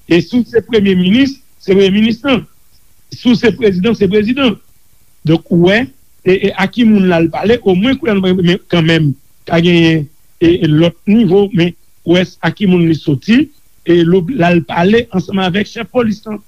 E si w se premye minis, se premye minis lan. Si w se prezidan, se prezidan. Donk, ou wè, e, e a ki moun l al pale, omwen kounye a nou pa, men kanmenm, ka genyen, e, e lòt nivo, men ou wè a ki moun li soti, e l al pale ansanm avèk chèf polis lan.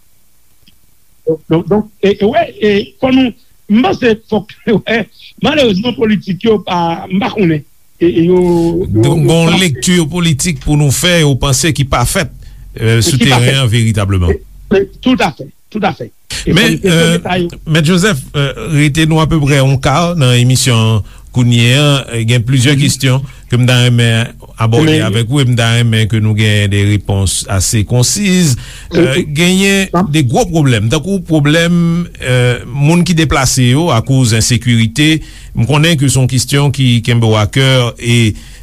Donk, donk, donk, e, e wè, e fò nou, m panse fòk, wè, malerezman, politik yo pa, m pa konnen. E, e yo, yo, Donk, yo gon pa lekti politik pou nou fè, ou panse ki pa fèt, e, sou ki pa teren fèt. an veritableman. E, e, toutafè, toutafè. E Men, fò n kesyon e, deta yo. Mèt Joseph, e, rete nou apeprè yon ka nan emisyon an kounye a, e, gen plizyè kesyon ke m ta renmen abòde Men avèk ou, e m ta renmen ke nou gen de repons ase konsiz. E, E, genyen Nan de gwo pwoblèm, tankou pwoblèm, e, moun ki deplase yo akoz ensekirite. M konnen ke se yon kesyon ki kenbe w a kè e,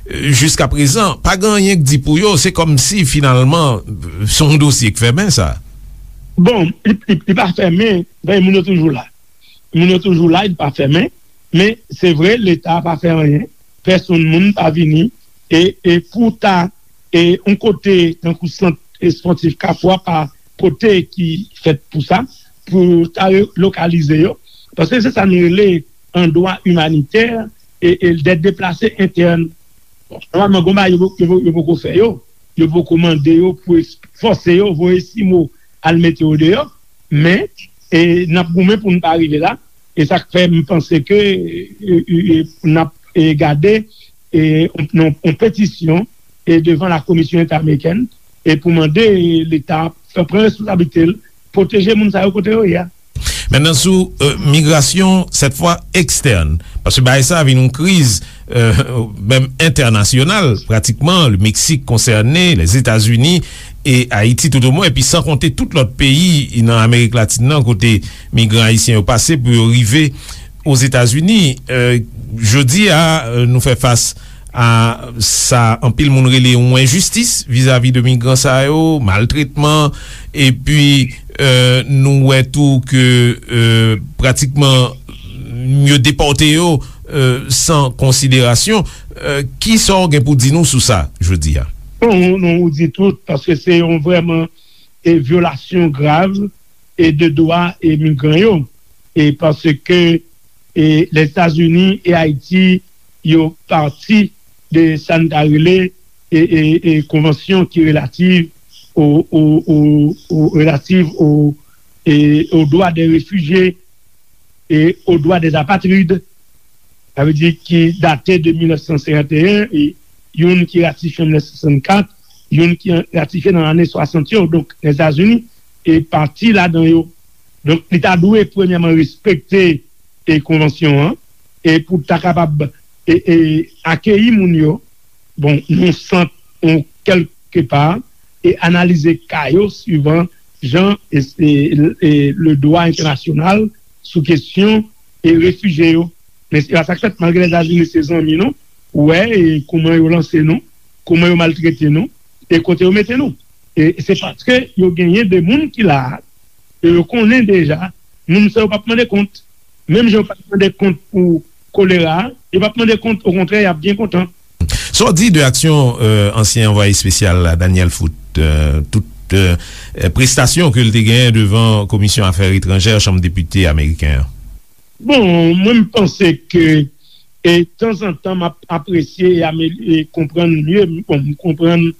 e, jiskaprezan, pa gen anyen k di pou yo. Se kòmsi, finalman, se yon dosye k fèmen, sa. Bon, li, li, li pa fèmen, men moun yo toujou la. Moun yo toujou la, li pa fèmen. Men, se vre, Leta pa fè anyen. Pèsonn moun pa vini. E, e pou ta, e yon kote tankou sant espòtif Kafou a pa kote ki fèt pou sa. pou ta relokalize yo, paske se sa nou rele an dwa imanitè e, e dèt deplase entèn. Bon, nòmalman, gon bagay yo, yo, yo poko fè yo. Yo poko mande yo pou es- fòse yo voye simo al mete yo deyò. Men, e, n ap goumen pou n pa rive la. E sa k fè m panse ke e, e, e, n ap e, gade e, yon, yon, yon petisyon e, devan la Komisyon Entèamerikèn e pou mande Leta fè pran responsablite l, pwoteje moun sa yo kote yo ye a. Mentnan sou euh, migrasyon, sèt fwa ekstèn, paske bagay sa vin yon kriz euh, menm entènasyonal, pratikman, le Mexique concerné, les États-Unis et Haïti tout au moins, epi san konte tout lòt peyi nan Amerik Latin nan kote migran ayisyen yo pase pou yo rive Ozetazini. Euh, jodi a, euh, nou fè fas a sa anpil moun rele yon enjistis vizavi de migran sa yo, maltretman, epi euh, nou wè tou ke euh, pratikman yo depòte yo euh, san konsiderasyon. Euh, ki sa w gen pou di nou sou sa jodi a? Bon, nou, nou di tout, paske se yon vrèman e vyolasyon grav e de dwa e migran yo. E paske e Lèzetazini e Ayiti yo pati de sa n ta rele e, e, e konvansyon ki relativ o, o, o, o relativ o, e, o dwa de refijye e o dwa de apatrid, sa vle di ki date de mil nèf san senkant e en, e youn ki ratifye an mil nèf san swasannkat, youn ki ratifye nan lane swasant yo. Donk, Lèzetazini e pati ladan yo. Donk, li ta dwe premyèman respekte e konvansyon an, e pou ta kapab e, e akeyi moun yo, bon, yon sant, yon kèlke pa, e analize ka yo swivan jan e, e, e le dwa entènasyonal sou kesyon e refijye yo. Men se pa sa k fèt, malgre Lèzetazini se zanmi nou, ou wè e kouman yo lanse nou, kouman yo maltrete nou, e kote yo mete nou. E se paske yo genyen de moun ki la a, e yo konnen deja, moun sa yo p ap mande kont. Menm jan yo pa t mande kont pou kolera, yo p ap mande kont, okontrè, y ap byen kontan. Sa w di de aksyon euh, ansyen anvwaye espesyal la, Daniel Foot, euh, tout euh, prestasyon ke l te genyen devan Komisyon Afè Etranjè Chanm Depite ameriken an? Bon, mwen, m panse ke e tanzantan, m ap apresye e, amel- e konprann mye. Bon, m konprann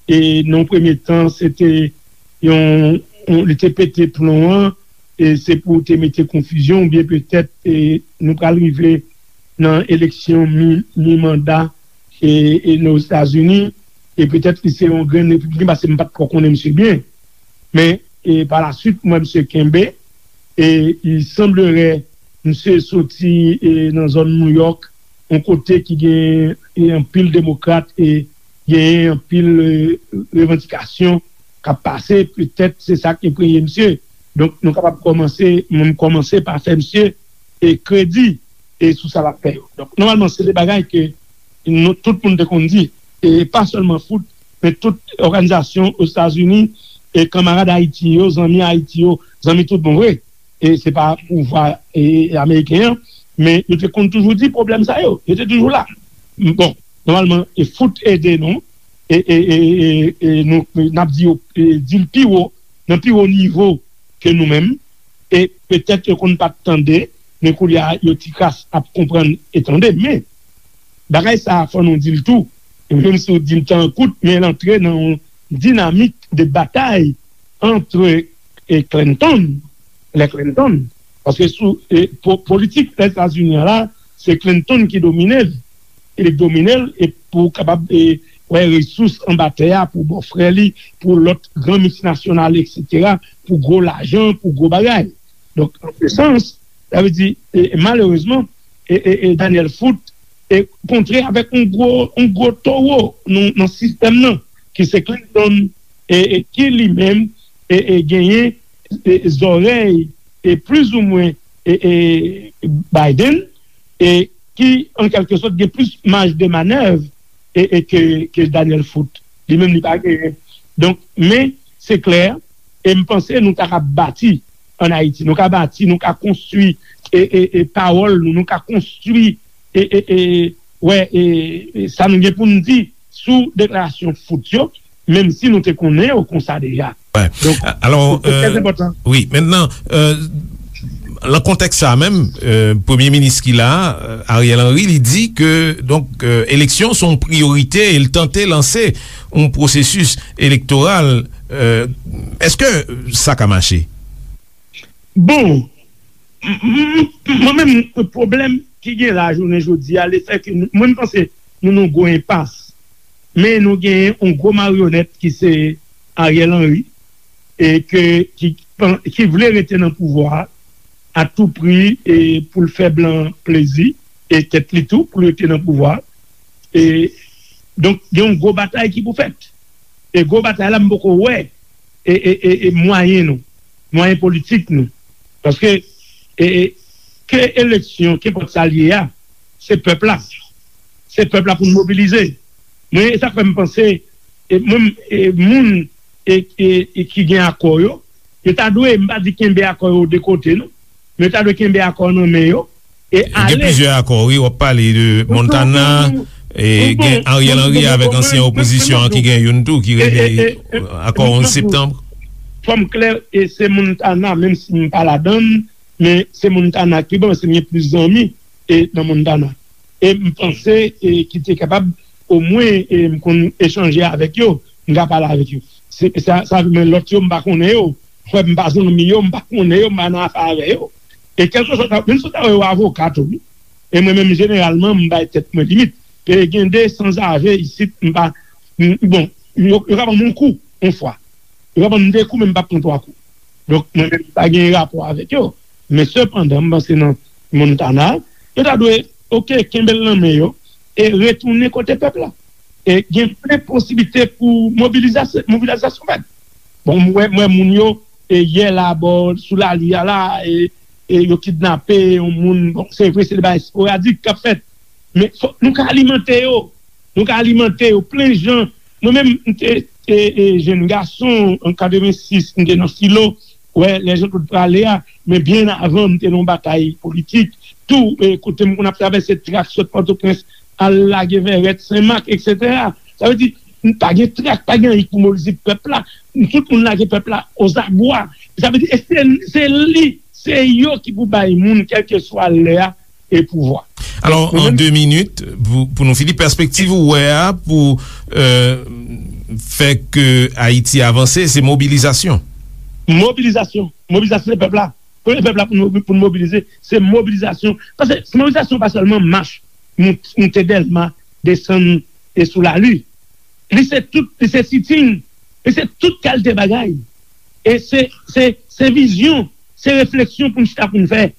e nan yon premye tan, se te yon, yon, li te pete plon an, e se pou te mete konfizyon, oubyen petèt e nou pral rive nan eleksyon mi, mi manda e, e nan Ozetazini, e petèt li se yon grenn repibliken, paske m pa t twò konnen misye byen. Men e pa la swit, m wè misye kenbe, e il semblerait misye soti e nan zòn New York, yon kote ki gen e anpil demokrat e genyen anpil e revandikasyon k ap pase, petèt se sa k enpreye misye. Donk, nou kapab kòmanse, mwen m kòmanse pa fè misye e kredi e sou sa l ap fè yo. Donk, nòmalman, se de bagay ke nou, tout moun te konn di, e pa sèlman Foot, men tout òganizasyon Ozetazini, e kanmarad Ayiti yo, zanmi Ayiti yo, zanmi tout bon vre, e se pa pouvwa e, ameriken an, men yo te konn toujou di pwoblèm sa yo, yo te toujou la. Bon, nòmalman, e Foot ede nou, e, e, e, e, e nou, n ap di yo, e, di l pi wo, nan pi wo nivo ke nou menm, e petèt yo konn pa t tande, men koulye a, yo ti kras ap konprann e tande. Men, bagay sa a, fò nou di l tou, e menm si w di l tan kout, men l antre nan yon dinamik de batay antre e Clinton, lè Clinton, paske sou e, po, politik Lèzetazini an la, se Clinton ki domine l, e domine l, e pou kapab e, wè resous anba tè a, pou bò frè li, pou lòt gran miltinasyonal, etsetera, pou gwo lajan, pou gwo bagay. Donk, an se sans, sa vle di, e, e malerezman, e, e, e Daniel Foot e kontre avèk yon gwo, yon gwo towo nan, nan sistèm nan, ki se Clinton, e, e ki li menm e, e genyen e, zòrèy e plizoumwen e, e Biden, e ki an kèlke sòt gen plis maj de manèv e, e ke, ke Daniel Foot. Li menm li pa genyen. Donk, men se klè, e m panse nou ta ka bati ann Ayiti. Nou ka bati, nou ka konstwi e, e, e pawòl nou, nou ka konstwi e, e, e, wè, e, e sa nou gen pou n di sou deklarasyon Foot yo. menm si nou te konnen yo konsa deja. Donk, alò, wi, mentnan, nan kontèks sa a menm, premye minis ki la a, Ariel Henry, li di ke, donk, eleksyon se yon priyorite e l tante lanse yon pwosesis elektoral. Èske sa ka mache? Bon, mwen menm, pwoblèm ki gen la jounen jodi a, lefètke mwen, m panse nou nan yon gwo enpas, men nou genyen yon gwo maryonèt ki se Ariel Henry, e ke ki, ki vle rete nan pouvwa a tou pri, e pou l fè blan plezi, e tèt li tou, pou l rete nan pouvwa a. E, donk, gen yon gwo batay ki pou fèt. E gwo batay la, m poko wè e, e, e, e mwayen nou, mwayen politik nou. Paske, e, e, ke eleksyon, kenpòt sa l ye a, se pèp la. Se pèp la pou n mobilize. Mwen, e sa k fè m panse, e mwen, e moun e, e, e ki gen akò yo, yo ta dwe, m pa di kenbe akò yo de kote, non, men yo ta dwe kenbe akò nan men yo, e ale. Gen plizyè akò, wi, w ap pale de Montana, e gen Ariel Henry avèk ansyen opozisyon an ki gen youn tou, ki rele akò onz septanm. Fò m klè, e se Montana, menm si m pa ladan l, men se Montana ki bon, se m gen plis zanmi e nan Montana. E m panse, e ki te kapab, omwen, e m konn echanje avèk yo, m ka pale avèk yo. Se, sa, sa, men lòt yo, m pa konnen yo. Frè m pa zanmi yo, m pa konnen yo, m pa nan afè avè yo. E kèlkeswa, menm si w ta wè yo avoka tou, wi. E mwen menm, jeneralman, m bay tèt mwen limit. E gen de sanzave isit, m pa, m, bon, yo, yo ka ban m yon kou, yon fwa. Yo ka ban m de kou, men m p ap pran twa kou. Donk, mwen menm, m pa gen rapò avèk yo. Men sepandan, m panse nan Montana, yo ta dwe, oke, kenbe l nan men yo, e retounen kote pèp la. E gen plen posiblite pou mobilizasyon, mobilizasyon fèt. Bon, m wè, m wè moun yo, e yè la, bò, sou lari a la, e, e yo kidnape yon moun. Bon, se vre, se de bagay esporadik k ap fèt. Men fòk nou ka alimante yo. Nou ka alimante yo plen jan. Mwen menm, m te, te, e, jenn gason, an katrevensis, m te nan Filo, wè, lè Jean Claude prale a, men byen avan, m te nan yon batay politik, tou, e, kote m konn ap travèse trak sot Pòtoprens, al lage Vèrèt, Senmak, etsetera. Sa vle di, m pa gen trak, pa gen anyen pou mobilize pèp la. Tout moun lage pèp la ozabwa. Sa vle di, e se, se li, se yo ki pou bay moun, kèlkeswa lè a, e pouvwa. Alò, an de minit, pou, pou nou fini, pèspektiv ou wè a pou, euh, fè ke Ayiti avanse, se mobilizasyon. Mobilizasyon. Mobilizasyon se pèp la. Premye pèp la pou nou, pou nou mobilize, se mobilizasyon. Paske mobilizasyon pa sèlman mach, mont-, monte Dèlma, desann e sou lari. Li se tout, li se sitin, li se tout kalite bagay. E se, se, se vizyon, se refleksyon pou n chita pou n fè.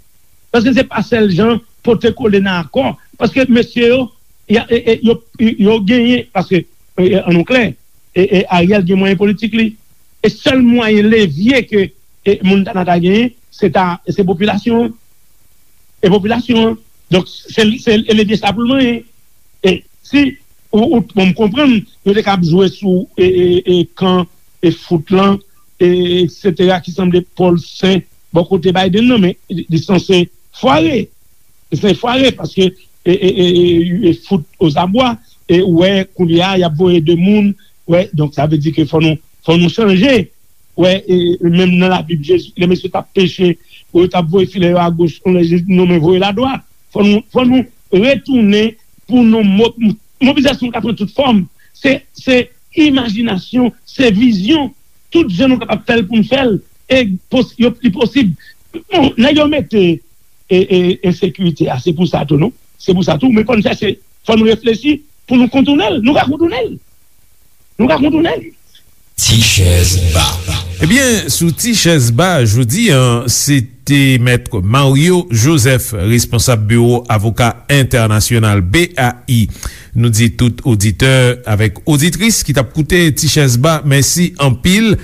Paske se pa sèl jan pote kole nan akò. Paske mesye yo, y a, e, e, yo, yo genyen, paske, e, e, ann nou klè, e, e, Ariel gen mwayen politik li. E sèl mwayen levye ke, e, Montana ta genyen, se ta, se popilasyon an. E popilasyon an. Donk, se, se levye sa pou l manyen. E si ou, ou, bon, m konprann, yo te ka ap jwe sou, e, e, e, kan, e, fout lan, e, etsetera, ki sanble Pòl Sen, bò kote Biden nan, men li, li sanse fware. Li sanse fware, paske, e, e, e, e, e, fout ozabwa, e, ou wè, kounye a, y ap voye de moun, wè, donk, sa vle di ke fò nou, fò nou chanje. Wè, e, menm nan Labib, Jezi, lè mesye t ap peche, yo t ap voye filè yo agoch, kounye a Jezi di, "Non, men voye l adwat." Fò nou, fò nou retounen pou nou mo-, mobilizasyon ka pran tout fòm. Se, se imajinasyon, se vizyon. Tout jan nou kapab fè l pou n fè l. E pos-, yo, li posib. Bon, nèg yo mete, e, e, ensekirite a, se pou sa tou, non? Se pou sa tou. Men fò n chèche, fò n reflechi pou nou kontounen l. Nou ka kontounen l. Nou ka kontounen l. Ti chèz ba. Ebyen, sou Ti chèz ba jodi a, se te Mèt Mario Joseph, responsab biwo avoka entènasyonal, B A I. Nou di tout oditè avèk oditris ki t ap koute Ti chèz ba, mèsi anpil.